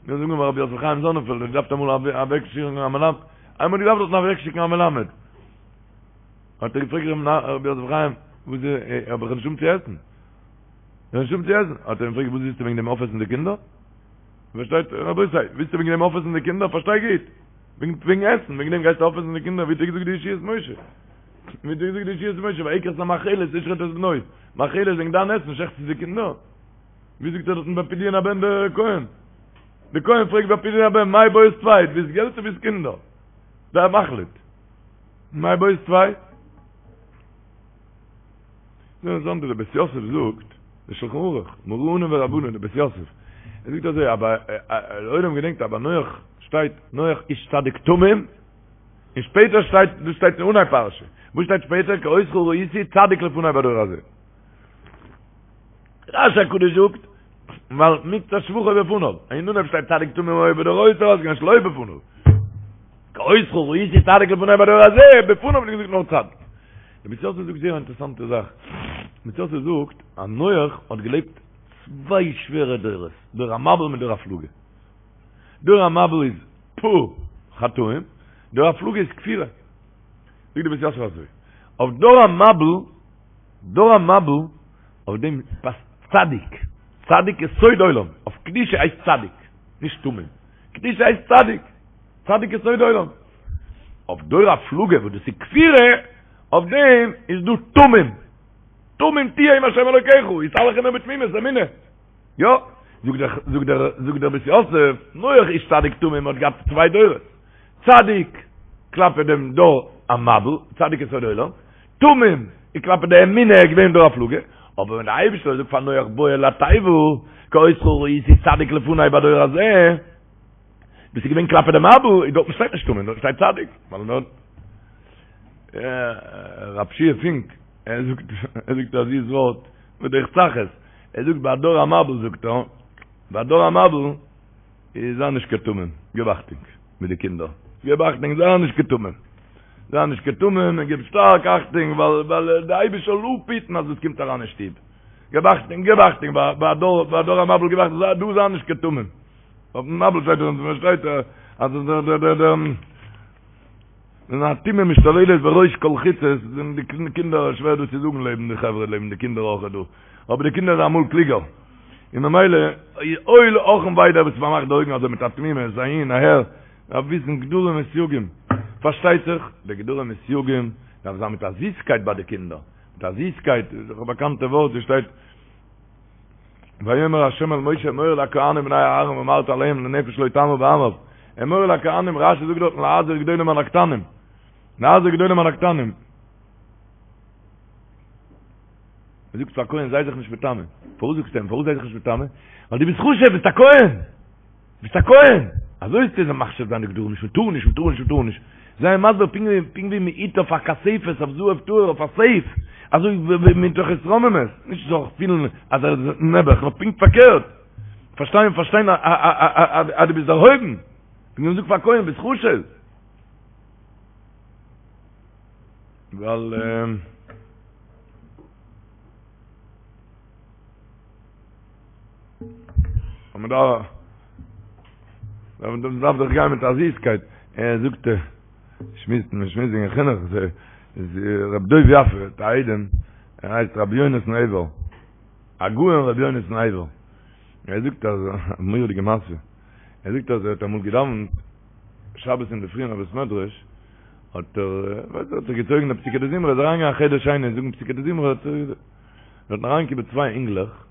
מיר זאגן ביי רבי יוסף חיים זאנענפעלד, ער געדארפט אמאל אוועקשיקן א מלמד, איינמאל געדארפט דארטן אוועקשיקן א מלמד. האט ער געפרעגט רבי יוסף חיים, וואס איז, האב איך נישט צו עסן? איך נישט צו עסן. האט ער אים געפרעגט, וואס ווילסטו וועגן דעם אויפעסן די קינדער? פארשטייט, רבותי, ווילסטו וועגן דעם אויפעסן די קינדער? פארשטיי גוט. וועגן וועגן עסן, וועגן דעם גייסטו אויפעסן די קינדער? ווי האט ער געזאגט די ישועות משה? ווי האט ער געזאגט די ישועות משה? ויקח את המאכלת לשחוט את בנו. מאכלת וועגן דיין עסן שעכטסטו די קינדער? ווי זאגט ער דארטן ביי פדיון הבן דער כהן? דער כהן פרעגט ביי פדיון הבן, מאי בעית טפי, ווילסט געלט צו ווילסט קינדער? זיי מחליט. מאי בעית טפי? נו, זאגט דער בית יוסף זאגט, דער שלחן ערוך, מרנן ורבנן, דער בית יוסף, ער זאגט אזוי, אבער דער עולם געדענקט אז ביי נח שטייט נח איש צדיק תמים, און שפעטער שטייט, דאס שטייט אין אנהייב פרשה, וואס שטייט שפעטער, כי אותך ראיתי צדיק לפני בדור הזה. רשי הקדוש זאגט, ווייל מקצת שבחו בפניו, אין אנהייב שטייט צדיק תמים היה בדורותיו, אז שלא בפניו. כי אותך ראיתי צדיק לפני בדור הזה, בפניו האט געזאגט נאר צדיק. דער בית יוסף זאגט זייער א אינטערעסאנטע זאך. דער בית יוסף זאגט אז נח האט געלעבט צוויי שווערע דורות, דור המבול מיט דור הפלגה. דור המבול איז פו חטאים, דור הפלגה איז כפירה. זאגט דער בית יוסף אזוי, אויף דור המבול, דור המבול, אויף דעם פאסט צדיק, צדיק יסוד עולם, אויף קדושה הייסט צדיק, נישט תמים, קדושה הייסט צדיק. צדיק יסוד עולם. אויף דור הפלגה וואס דאס איז כפירה, אויף דעם איז דא תמים. תמים תהיה עם השם אלוקיך, התהלך עמו בתמימות, אמונה. יא, זאגט דער, זאגט דער, זאגט דער בית יוסף, נח איש צדיק תמים האט געהאט צוויי דורות. צדיק כלפי דעם דור המבול, צדיק יסוד עולם, תמים איז כלפי די אמונה איז געווען דור הפלגה, אבער ווען דער אייבערשטער האט געזאגט פאר נח בוא אל התיבה, כי אותך ראיתי צדיק לפני בדור הזה, דאס איז געווען כלפי די מבול, איז דארטן שטייט נישט תמים, דארט שטייט צדיק. ווייל דארט רב שיע פינק, ער זאגט, ער זאגט א זיס ווארט, בדרך צחות, ער זאגט ביי דור המבול זאגט ער, ביי דור המבול איז זיי נישט קיין תמים, גיב אכטונג מיט די קינדער, גיב אכטונג זיי נישט קיין תמים, זיי נישט קיין תמים און גיב שטארק אכטונג ווייל ווייל די אייבערשטער זאל אפהיטן אז עס קומט אריין אין שטוב, גיב אכטונג, גיב אכטונג ביי דור ביי דור המבול גיב אכטונג, דא זיי נישט קיין תמים. אויפן מבול שטייט דאך און שטייט אז דער דער דער דער ווען הטומאה משתוללת בראש כל חוצות זענען די קינדער שווער דאס צו זאגן לעבן די חברה לעבן די קינדער אויך דא אבער די קינדער זענען אמאל קלוגער און ממילא אוי אך און וויי דער וואס פארמאכט די אויגן אזוי מיט א תמימות אהין אהער דארף וויסן גדרים וסייגים פארשטייט זיך די גדרים וסייגים דארף זיין מיט א זיסקייט ביי די קינדער מיט א זיסקייט איז דאך א באקאנטע ווארט וואס שטייט ויאמר ה' אל משה אמור אל הכהנים בני אהרן ואמרת אליהם לנפש לא תאמר בעמיו אמור אל הכהנים רשי זאגט דארטן להזהיר גדולים על הקטנים להזהיר גדולים על הקטנים מען זאגט פאר כהן זיי זיך נישט מטמא פארוואס זאגסטו אים פארוואס זיי זיך נישט מטמא ווייל דו ביסט חשוב ביסט א כהן ביסט א כהן! אזוי איז צו מחשיב זיין די גדרים, נישט מ'טאר נישט, מ'טאר נישט, מ'טאר נישט. זיי אים מסביר פונקט ווי פונקט ווי מ'היט אויף א כספת, אויף זהב טהור, אויף א סעיף, אזוי ווי מתוך התרוממות, נישט זאל זיך פילן אז ער איז נעבעך, נאר פונקט פארקערט, פארשטיין פארשטיין אז דו ביסט דערהויבן, פונקט ווי מ'זאגט פאר א כהן ביסט חשוב. ווייל. און מען דארף מען דארף דאך גיין מיט א זיסקייט, ער זאגט שמועסט מען שמועסט וועגן חינוך, איז רב דוב יפה האט א איידעם, ער הייסט רבי יונתן עבר, הגאון רבי יונתן עבר, ער זאגט אז א מורא'דיגע מעשה, ער זאגט אז ער האט אמאל געדאווענט שבת אינדערפרי אין א בית מדרש, האט ער, ווייסט ער האט זיך געצויגן די פסוקי דזמרה, איז אריינגעגאנגען א חדר שני זאגן פסוקי דזמרה, האט ער דארטן אריינגעקומען צוויי אינגלעך,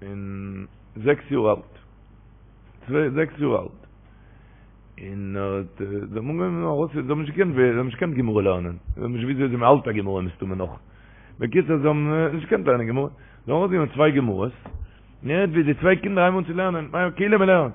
און זעקס יאר אלט, צוויי זעקס יאר אלט, און ער האט, זיי האבן אנגעהויבן ארויס, זיי האבן נישט געקענט, זיי האבן נישט געקענט גמרא לערנען, זיי האבן נישט געוואוסט וויאזוי מען האלט א גמרא מסתמא נאך, בקיצור זיי האבן נישט געקענט לערנען גמרא, זיי האבן ארויסגענומען צוויי גמרות, און ער הערט ווי די צוויי קינדער הייבן אן צו לערנען, כאילו מען לערנט.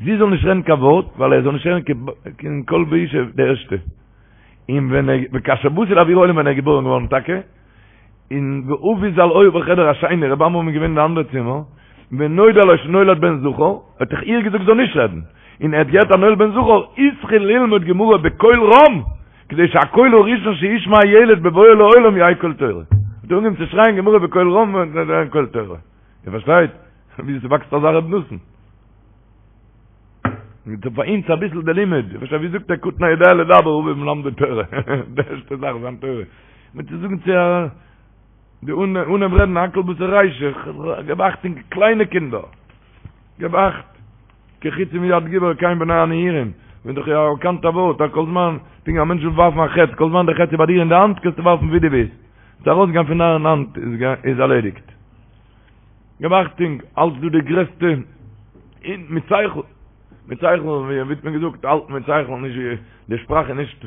זי זאל נישט רעדן קיין ווארט, ווייל ער זאל נישט הערן קיין קול באשה די ערשטע. און ווען ער, וכאשר באתי לאויר העולם ווען ער איז געבוירן געווארן טאקע, און ואבי ז"ל היה בחדר השני, רבי עמרם איז געווען אין די אנדערע צימער, ונודע לו שנולד בן זכר, האט דאך איר געזאגט זי זאל נישט רעדן, און ער האט געהערט אז נולד בן זכר, התחיל ללמוד גמרא בקול רם, כדי שהקול הראשון שישמע הילד בבואו לעולם יהא קול תורה. האט ער אנגעהויבן צו שרייען גמרא בקול רם און קול תורה. איר פארשטייט ווי ס'וואקסט אזא רב נתן? מיט פאר אונז אביסל די לימוד, איר פארשטייט ווי זאגט ער קטן היודע לדבר אביו מלמדו תורה, די ערשטע זאך זיין תורה. מיט צו זאגן צו א די אנהייב רעדן הכל בתר רישא, געב אכטונג קליינע קינדער, געב אכט. כחצים מיד גבור כן בני הנעורים, ווען דאך יא א באקאנטע ווארט אז כל זמן פונקט ווי א מענטש וויל ווארפן א חץ כל זמן די חץ איז ביי דיר אין די האנט קענסטו ווארפן ווי דו ווילסט, ס'איז ארויסגעגאנגען פון דיין האנט איז ערלעדיגט. געב אכטונג, אלץ דא די גרעסטע און מיט שכל, מיט שכל ווי האט מען געזאגט האלט מיט שכל נישט ווי די שפראך איז נישט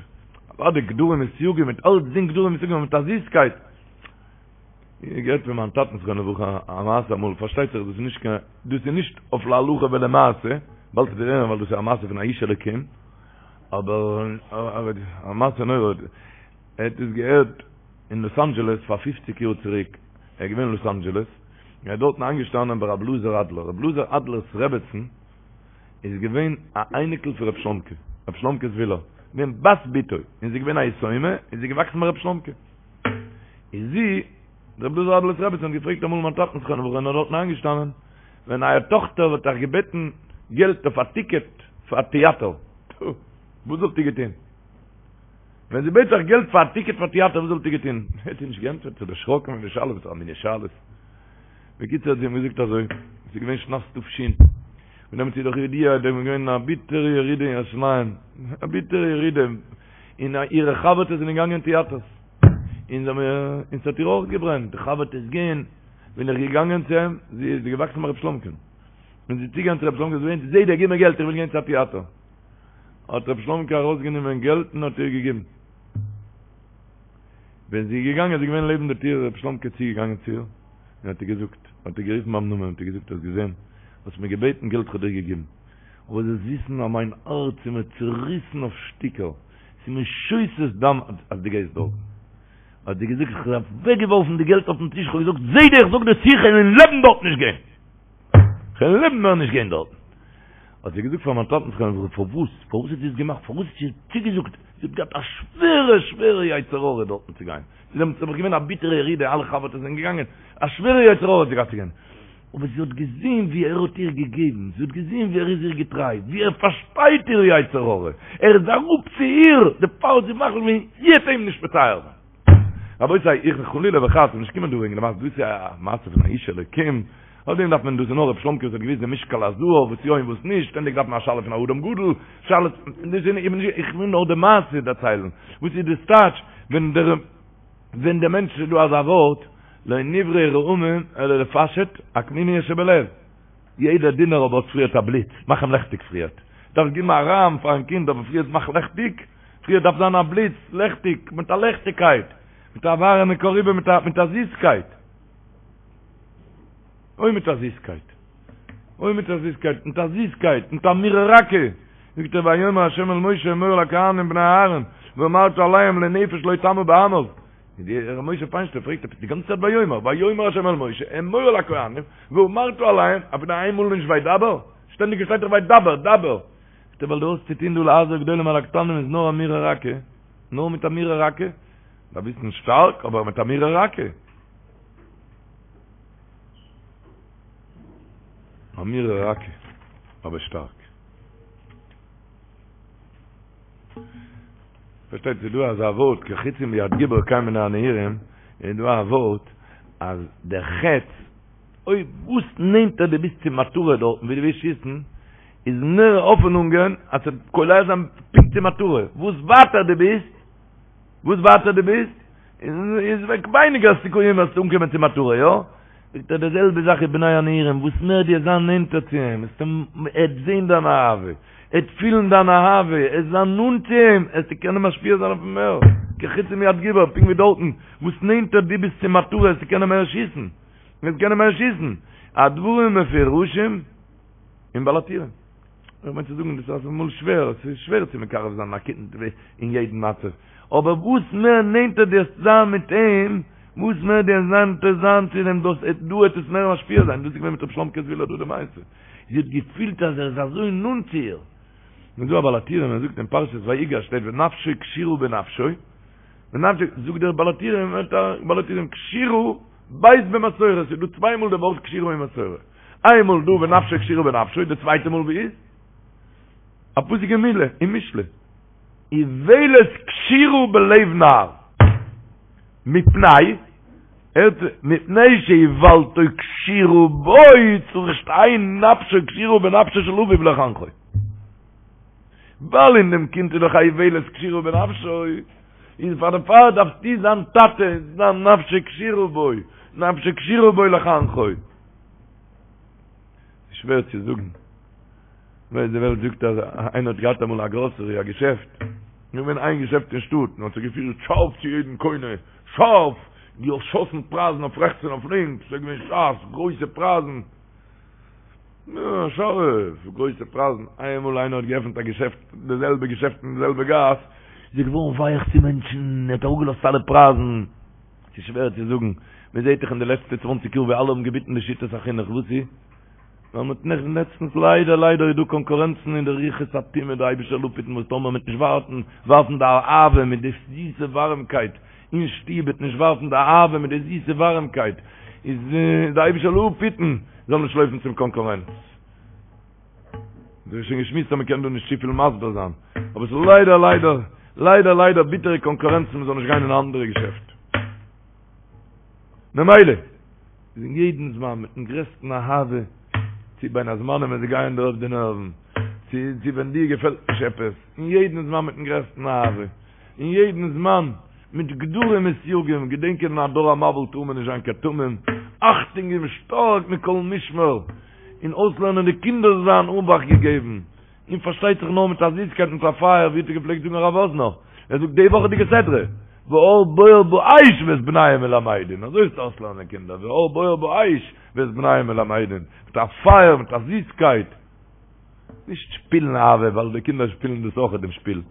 אוודאי גדרים און סייגים מיט אלצדינג גדרים און סייגים מיט א זיסקייט. איך געהערט פון מיין טאטן זכרונו לברכה א מעשה אמאל, פארשטייט זיך דאס איז נישט קיין, דאס איז נישט אויף להלכה ולמעשה, באלד וועט איר הערן ווייל דאס איז א מעשה פון א איש אלוקים, אבער א מעשה נורא, ער האט עס געהערט אין לאס אנדזשעלעס פאר פופציג יאר צוריק, ער איז געווען אין לאס אנדזשעלעס, און ער איז דארטן איינגעשטאנען ביי רבי אלעזר אדלער, רבי אלעזר אדלער'ס רעבעצן איז געווען א אייניקל פון רבי שלומקע, רבי שלומקע זוויהלער, געווען בת בתו, און זי איז געווען א יתומה, און זי איז געוואקסן ביי רבי שלומקע. איז זי, רבי אלעזר אדלער'ס רעבעצן האט געפרעגט אמאל מיין טאטן זכרונו לברכה און ער איז דארטן איינגעשטאנען, ווען אייער טאכטער וואלט אייך געבעטן געלט אויף א טיקעט פאר א טיאטער, וואס וואלט איר געטון? ווען זי בעט אייך געלט פאר א טיקעט פאר טיאטער וואס וואלט איר געטון? ער האט איר נישט געענטפערט, זיך דערשראקן פון די שאלה, וואס פאר א מיני שאלות. בקיצור האט זי אים געזאגט אזוי, עס איז געווען שנת ת"ש, און דעמאלטס איז דאך ידוע, דא איז געווען א ביטערע ירידה אין ירושלים, א ביטערע ירידה, און אירע חבר'טעס זענען געגאנגען אין טיאטערס, און זיי האבן, און ס'האט איר אויך געברענט, די חבר'טעס גייען, בין איך געגאנגען צו אים, זי איז געוואקסן ביי רב שלומקע'ן, ווען זי איז צוגעגאנגען צו רב שלומקע, זי וויינט, זיידע גיב מיר געלט, איך וויל גיין צו א טיאטער. האט רב שלומקע ארויסגענומען געלט און האט איר געגעבן. ווען זי איז געגאנגען, זי איז געווען לעבן די טיר, איז רב שלומקע צוגעגאנגען צו איר, און האט איר געזאגט, האט איר גערופן ביים נאמען, האט איר געזאגט, האסט געזען, האסט מיר געבעטן געלט, כ'האב דיר געגעבן. אבער זאלסט וויסן אז מיין הארץ איז מיר צוריסן אויף שטיקער, ס'איז מיר שותת דם אז דו גייסט דארטן. האט זי געזאגט, איך האב אוועקגעווארפן די געלט אויפן טיש, איך האב געזאגט, זיידע איך זאג דיר צו, איך וועל אין לעבן דארט נישט גיין! איך וועל אין לעבן מער נישט גיין דארטן! האט זי געזאגט פאר מיין טאטן זכרונו לברכה, פארוואס? פארוואס האט זי עס געמאכט? פארוואס האט זי צוגעזאגט? זי האט געהאט א שווערע שווערע יצר הרע דארטן צו גיין. ס'איז דעמאלטס נעבעך געווען א ביטערע ירידה, אלע חבר'טעס זענען געגאנגען, א שווערע יצר הרע האט זי געהאט צו גיין. אבער זי האט געזען ווי ער האט איר געגעבן, זי האט געזען ווי ער איז איר געטריי, ווי ער פארשטייט איר יצר הרע, ער איז אראפ צו איר, דערפאר האט זי מחליט געווען זי וועט אים נישט מצער זיין. רבותי, איך בין חלילה וחס נישט געקומען דא וועגן די מעשה, דאס איז א מעשה פון א איש אלוקים, אויף דעם דארף מען, דאס איז נאר רב שלומקע וואס האט געוואוסט די משקל הזהב וואס יא און וואס נישט, שטענדיג דארף מען א שאלה פון א אדם גדול, שאלות, איך וויל נאר די מעשה דערציילן, וואס איז דאס טייטש ווען דער. ווען דער מענטש איז דא אזא ווארט, לא נבראו רעמים אלא לפשט עקמומית שבלב, יעדער דונער אבער האט פריערט א בליץ, מאך אים לעכטיג פריערט, דארפסט געבן א רעם פארן קינד אבער פריערט מאך לעכטיג, פריערט דארף זיין א בליץ, לעכטיג, מיט א לעכטיגקייט, מיט א ווארעמע קאריבע, מיט א זיסקייט. אוי מיט א זיסקייט. אוי מיט א זיסקייט, מיט א זיסקייט, מיט אמירה רכה, זאגט ער ויאמר ה' אל משה אמור אל הכהנים בני אהרן ואמרת אליהם לנפש לא טמא בעמיו, ר' משה פיינשטיין פרעגט עפעס די גאנצע צייט ויאמר, ויאמר ה' אל משה אמור אל הכהנים ואמרת אליהם, אפילו איינמאל נישט וידבר? שטענדיג שטייט דאך וידבר, דבר. זאגט ער ווייל דו האסט צו טון דא להזהיר גדולים על הקטנים איז נאר אמירה רכה, נאר מיט אמירה רכה, דארף וויסן שטארק אבער מיט אמירה רכה. אמירה רכה, אבער שטארק. פארשטייט ס'איז דא אזא ווארט כחיצים ביד גיבור כן בני הנעורים, איז דא א ווארט אז דער חץ, אויב וואס נענטער דו ביסט צום מטרה דארטן ווי דו ווילסט שיסן, איז מער האפענונגען אז ס'וועט קולע זיין פונקט צום מטרה, וואס ווייטער דו ביסט, וואס ווייטער דו ביסט, איז ווייניגער סיכויים וועסטו אנקומען צום מטרה, יא? זאגט ער די זעלבע זאך איז בני הנעורים, וואס מער דו וועסט זיין נענטער צו אים, וועסטו ער וועט זען דיין אהבה, ער וועט פילן דיין אהבה, וועסט זיין נאנט צו אים, וועסטו קענען משפיע זיין אויף אים מער, כחיצים מיד גיבור, פונקט ווי דארטן, וואס נענטער דו ביסט צום מטרה וועסטו קענען מער שיסן, וועסט קענען מער שיסן, הדברים מפורשים אין בעל הטורים. איך מיין צו זאגן דאס איז אמאל שווער, עס איז שווער צו מקרב זיין א קינד אין יעדן מצב, אבער וואס מער נענטער דו וועסט זיין מיט אים, וואס מער דו וועסט נענטער זיין צו אים, דאס דא וועט עס מער משפיע זיין, דאס איז געווען מיט ר' שלומ'קע זוויהלער דא די מעשה, זי האט געפילט אז ער איז אזוי נאנט צו איר. און דא א בעל הטורים ער זאגט אין פרשת ויגש שטייט ונפשו קשורה בנפשו, ונפשו, זאגט דער בעל הטורים, בעל הטורים קשורה ב' במסורה, ס'איז דא צוויי מאל די ווארט קשורה אין מסורה, איינמאל דא ונפשו קשורה בנפשו, די צווייטע מאל ווי איז? א פסוק אין מילה, אין משלי. איוולת קשורה בלב נער. מפני, הערט, מפני שאיוולתו קשורה בו, צריך שתהא נפשו קשורה בנפשו של אביו לחנכו. ווייל אין דעם קינד איז דאך א איוולת קשורה בנפשו, איז פאר דערפאר דארפסטו זיין טאטע, זיין נפשו קשורה בו, נפשו קשורה בו לחנכו. ס'איז שווער צו זאגן. ווייל די וועלט זאגט אז איינער האט געהאט אמאל א גראסערי, א געשעפט, געווען איין געשעפט אין שטאט, און האט זיך געפירט שארף צו יעדן קונה, שארף, געשאסן פרייזן אויף רעכטס און אויף לינקס, ס'איז געווען שארף, גרויסע פרייזן, יא, שארף, גרויסע פרייזן, איינמאל איינער האט געעפנט א געשעפט, די זעלבע געשעפט אין די זעלבע גאס, איז ער געווארן ווייך צו מענטשן, ער האט אראפגעלאזט אלע פרייזן, ס'איז שווער צו זאגן, מען זעט דאך אין די לעצטע צוואנציג יאר ווי אלע האבן געביטן די שיטת החינוך, וואס איז? ווייל מ'האט נעכטן לעצטנס ליידער ליידער איז דא קאנקורענצן אין די רוחות הטומאה די אייבישטער זאל אפהיטן וואס טאמער מ'וועט נישט ווארטן ווארפן די אהבה מיט די זיסע ווארעמקייט אין שטוב וועט נישט ווארפן די אהבה מיט די זיסע ווארעמקייט איז די אייבישטער זאל אפהיטן זאל נישט לויפן צום קאנקורענץ. דאס איז שוין געשמועסט אז מ'קען דא נישט צופיל מסביר זיין אבער ס'איז ליידער ליידער ליידער ליידער ביטערע קאנקורענצן מ'זאל נישט גיין אין א אנדערע געשעפט. ממילא איז אין יעדן זמן מיטן גרעסטן אהבה, צו בין הזמנים ווען זיי גייען דיר אויף די נערוון, צו צו ווען דיר געפעלט נישט עפעס, אין יעדן זמן מיטן גרעסטן אהבה, אין יעדן זמן מיט גדרים וסייגים, געדענקען אין א דור המבול טאר מען נישט זיין קיין תמים, אכטונג געבן שטארק מכל משמר, און אויסלערנען די קינדער זיין אבאכט געגעבן. און פארשטייט זיך נאר מיט א זיסקייט מיט א פייער, ווי האט ער געפלעגט זאגן הרב וואזנער, ער זאגט די וואכעדיגע סדרה, והאר בוער באש ואת בניהם מלמדין, אזוי איז צו אויסלערנען קינדער, והאר בוער באש ואת בניהם מלמדין, מיט א פייער, מיט א זיסקייט, נישט שפילן אהבה, ווייל די קינדער שפילן דאס אויך דעם שפיל,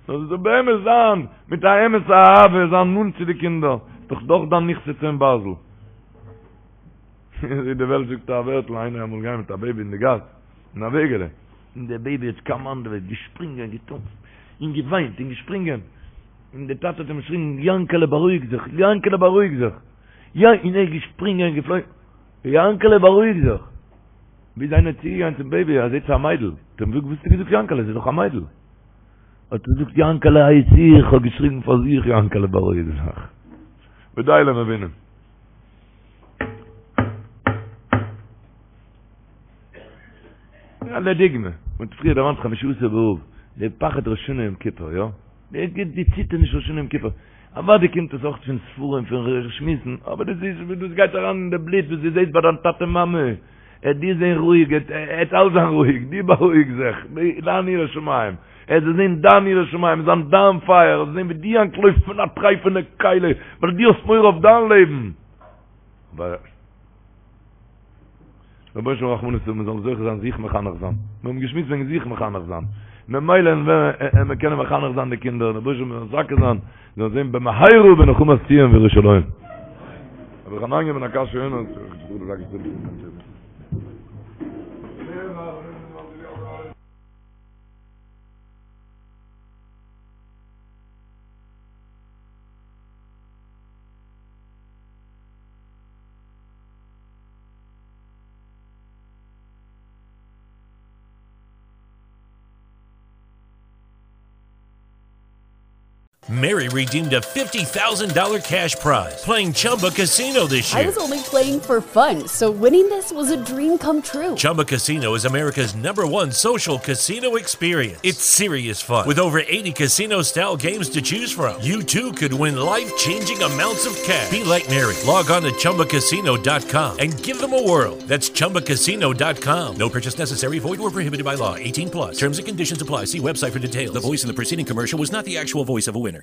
נאר עס זאל באמת זיין מיט א אמת'ע אהבה, זיין נאנט צו די קינדער, דאך דאך דיין נכסי צאן ברזל. ווי די וועלט זאגט א ווערטל, איינער אמאל געגאנגען מיט א בעיבי אין די גאס, אין א וועגעלע, און דער בעיבי האט קאמאנדעוועט, געשפרינגען, געטאנצט, און געוויינט, און געשפרינגען, און דער טאטע האט אים געשריגן, יאנקעלע בארואיג זיך, יאנקעלע בארואיג זיך, יא, און ער איז געשפרינגען, געפלויגן, יאנקעלע בארואיג זיך, ביז איינער איז צוגעגאנגען צום בעיבי, ער זעט ס'איז א מיידל, האט ער אים געזאגט, וואס האסטו געזאגט יאנקעלע, ס'איז דאך א מיידל. האט ער געזאגט, יאנקעלע הייס איך, האב געשריגן פאר זיך, יאנקעלע בארואיג זיך. ודי למבינים. לדוגמא, מ'האט פריער דערמאנט חמשה עשר באב, די פחד ראש השנה יום כיפור, יא? די די ציטערניש ראש השנה יום כיפור. אוודאי קומט עס אויך פון ספרים, פון שמועסן, אבער דאס איז וואס דאס גייט אריין אין די בלוט, וואס דו זעסט ביי דיין טאטע מאמע. ער דיר זען רואיג, ער וועט אלץ זיין רואיג, דו בארואיג זיך, דיין יראת שמים. ער זאל זען דיין יראת שמים, זיין דיין פייער, ער זאל זען ווי דו אנטלויפסט פון א טרייפענע כלי, ווייל דו האסט מורא אויף דיין לעבן. אבער רבונו של עולם רחמנות האבן מיר זאלן זוכה זיין זיך מחנך זיין, מיר האבן געשמועסט וועגן זיך מחנך זיין, ממילא וועלן מיר קענען מחנך זיין די קינדער, רבונו של עולם מזכה זיין, זאלן זען במהרה בנחמת ציון וירושלים. רבי חנניא בן עקשיא אומר, Mary redeemed a $50,000 cash prize playing Chumba Casino this year. I was only playing for fun, so winning this was a dream come true. Chumba Casino is America's number one social casino experience. It's serious fun. With over 80 casino style games to choose from, you too could win life changing amounts of cash. Be like Mary. Log on to chumbacasino.com and give them a whirl. That's chumbacasino.com. No purchase necessary, void or prohibited by law. 18 plus. Terms and conditions apply. See website for details. The voice in the preceding commercial was not the actual voice of a winner.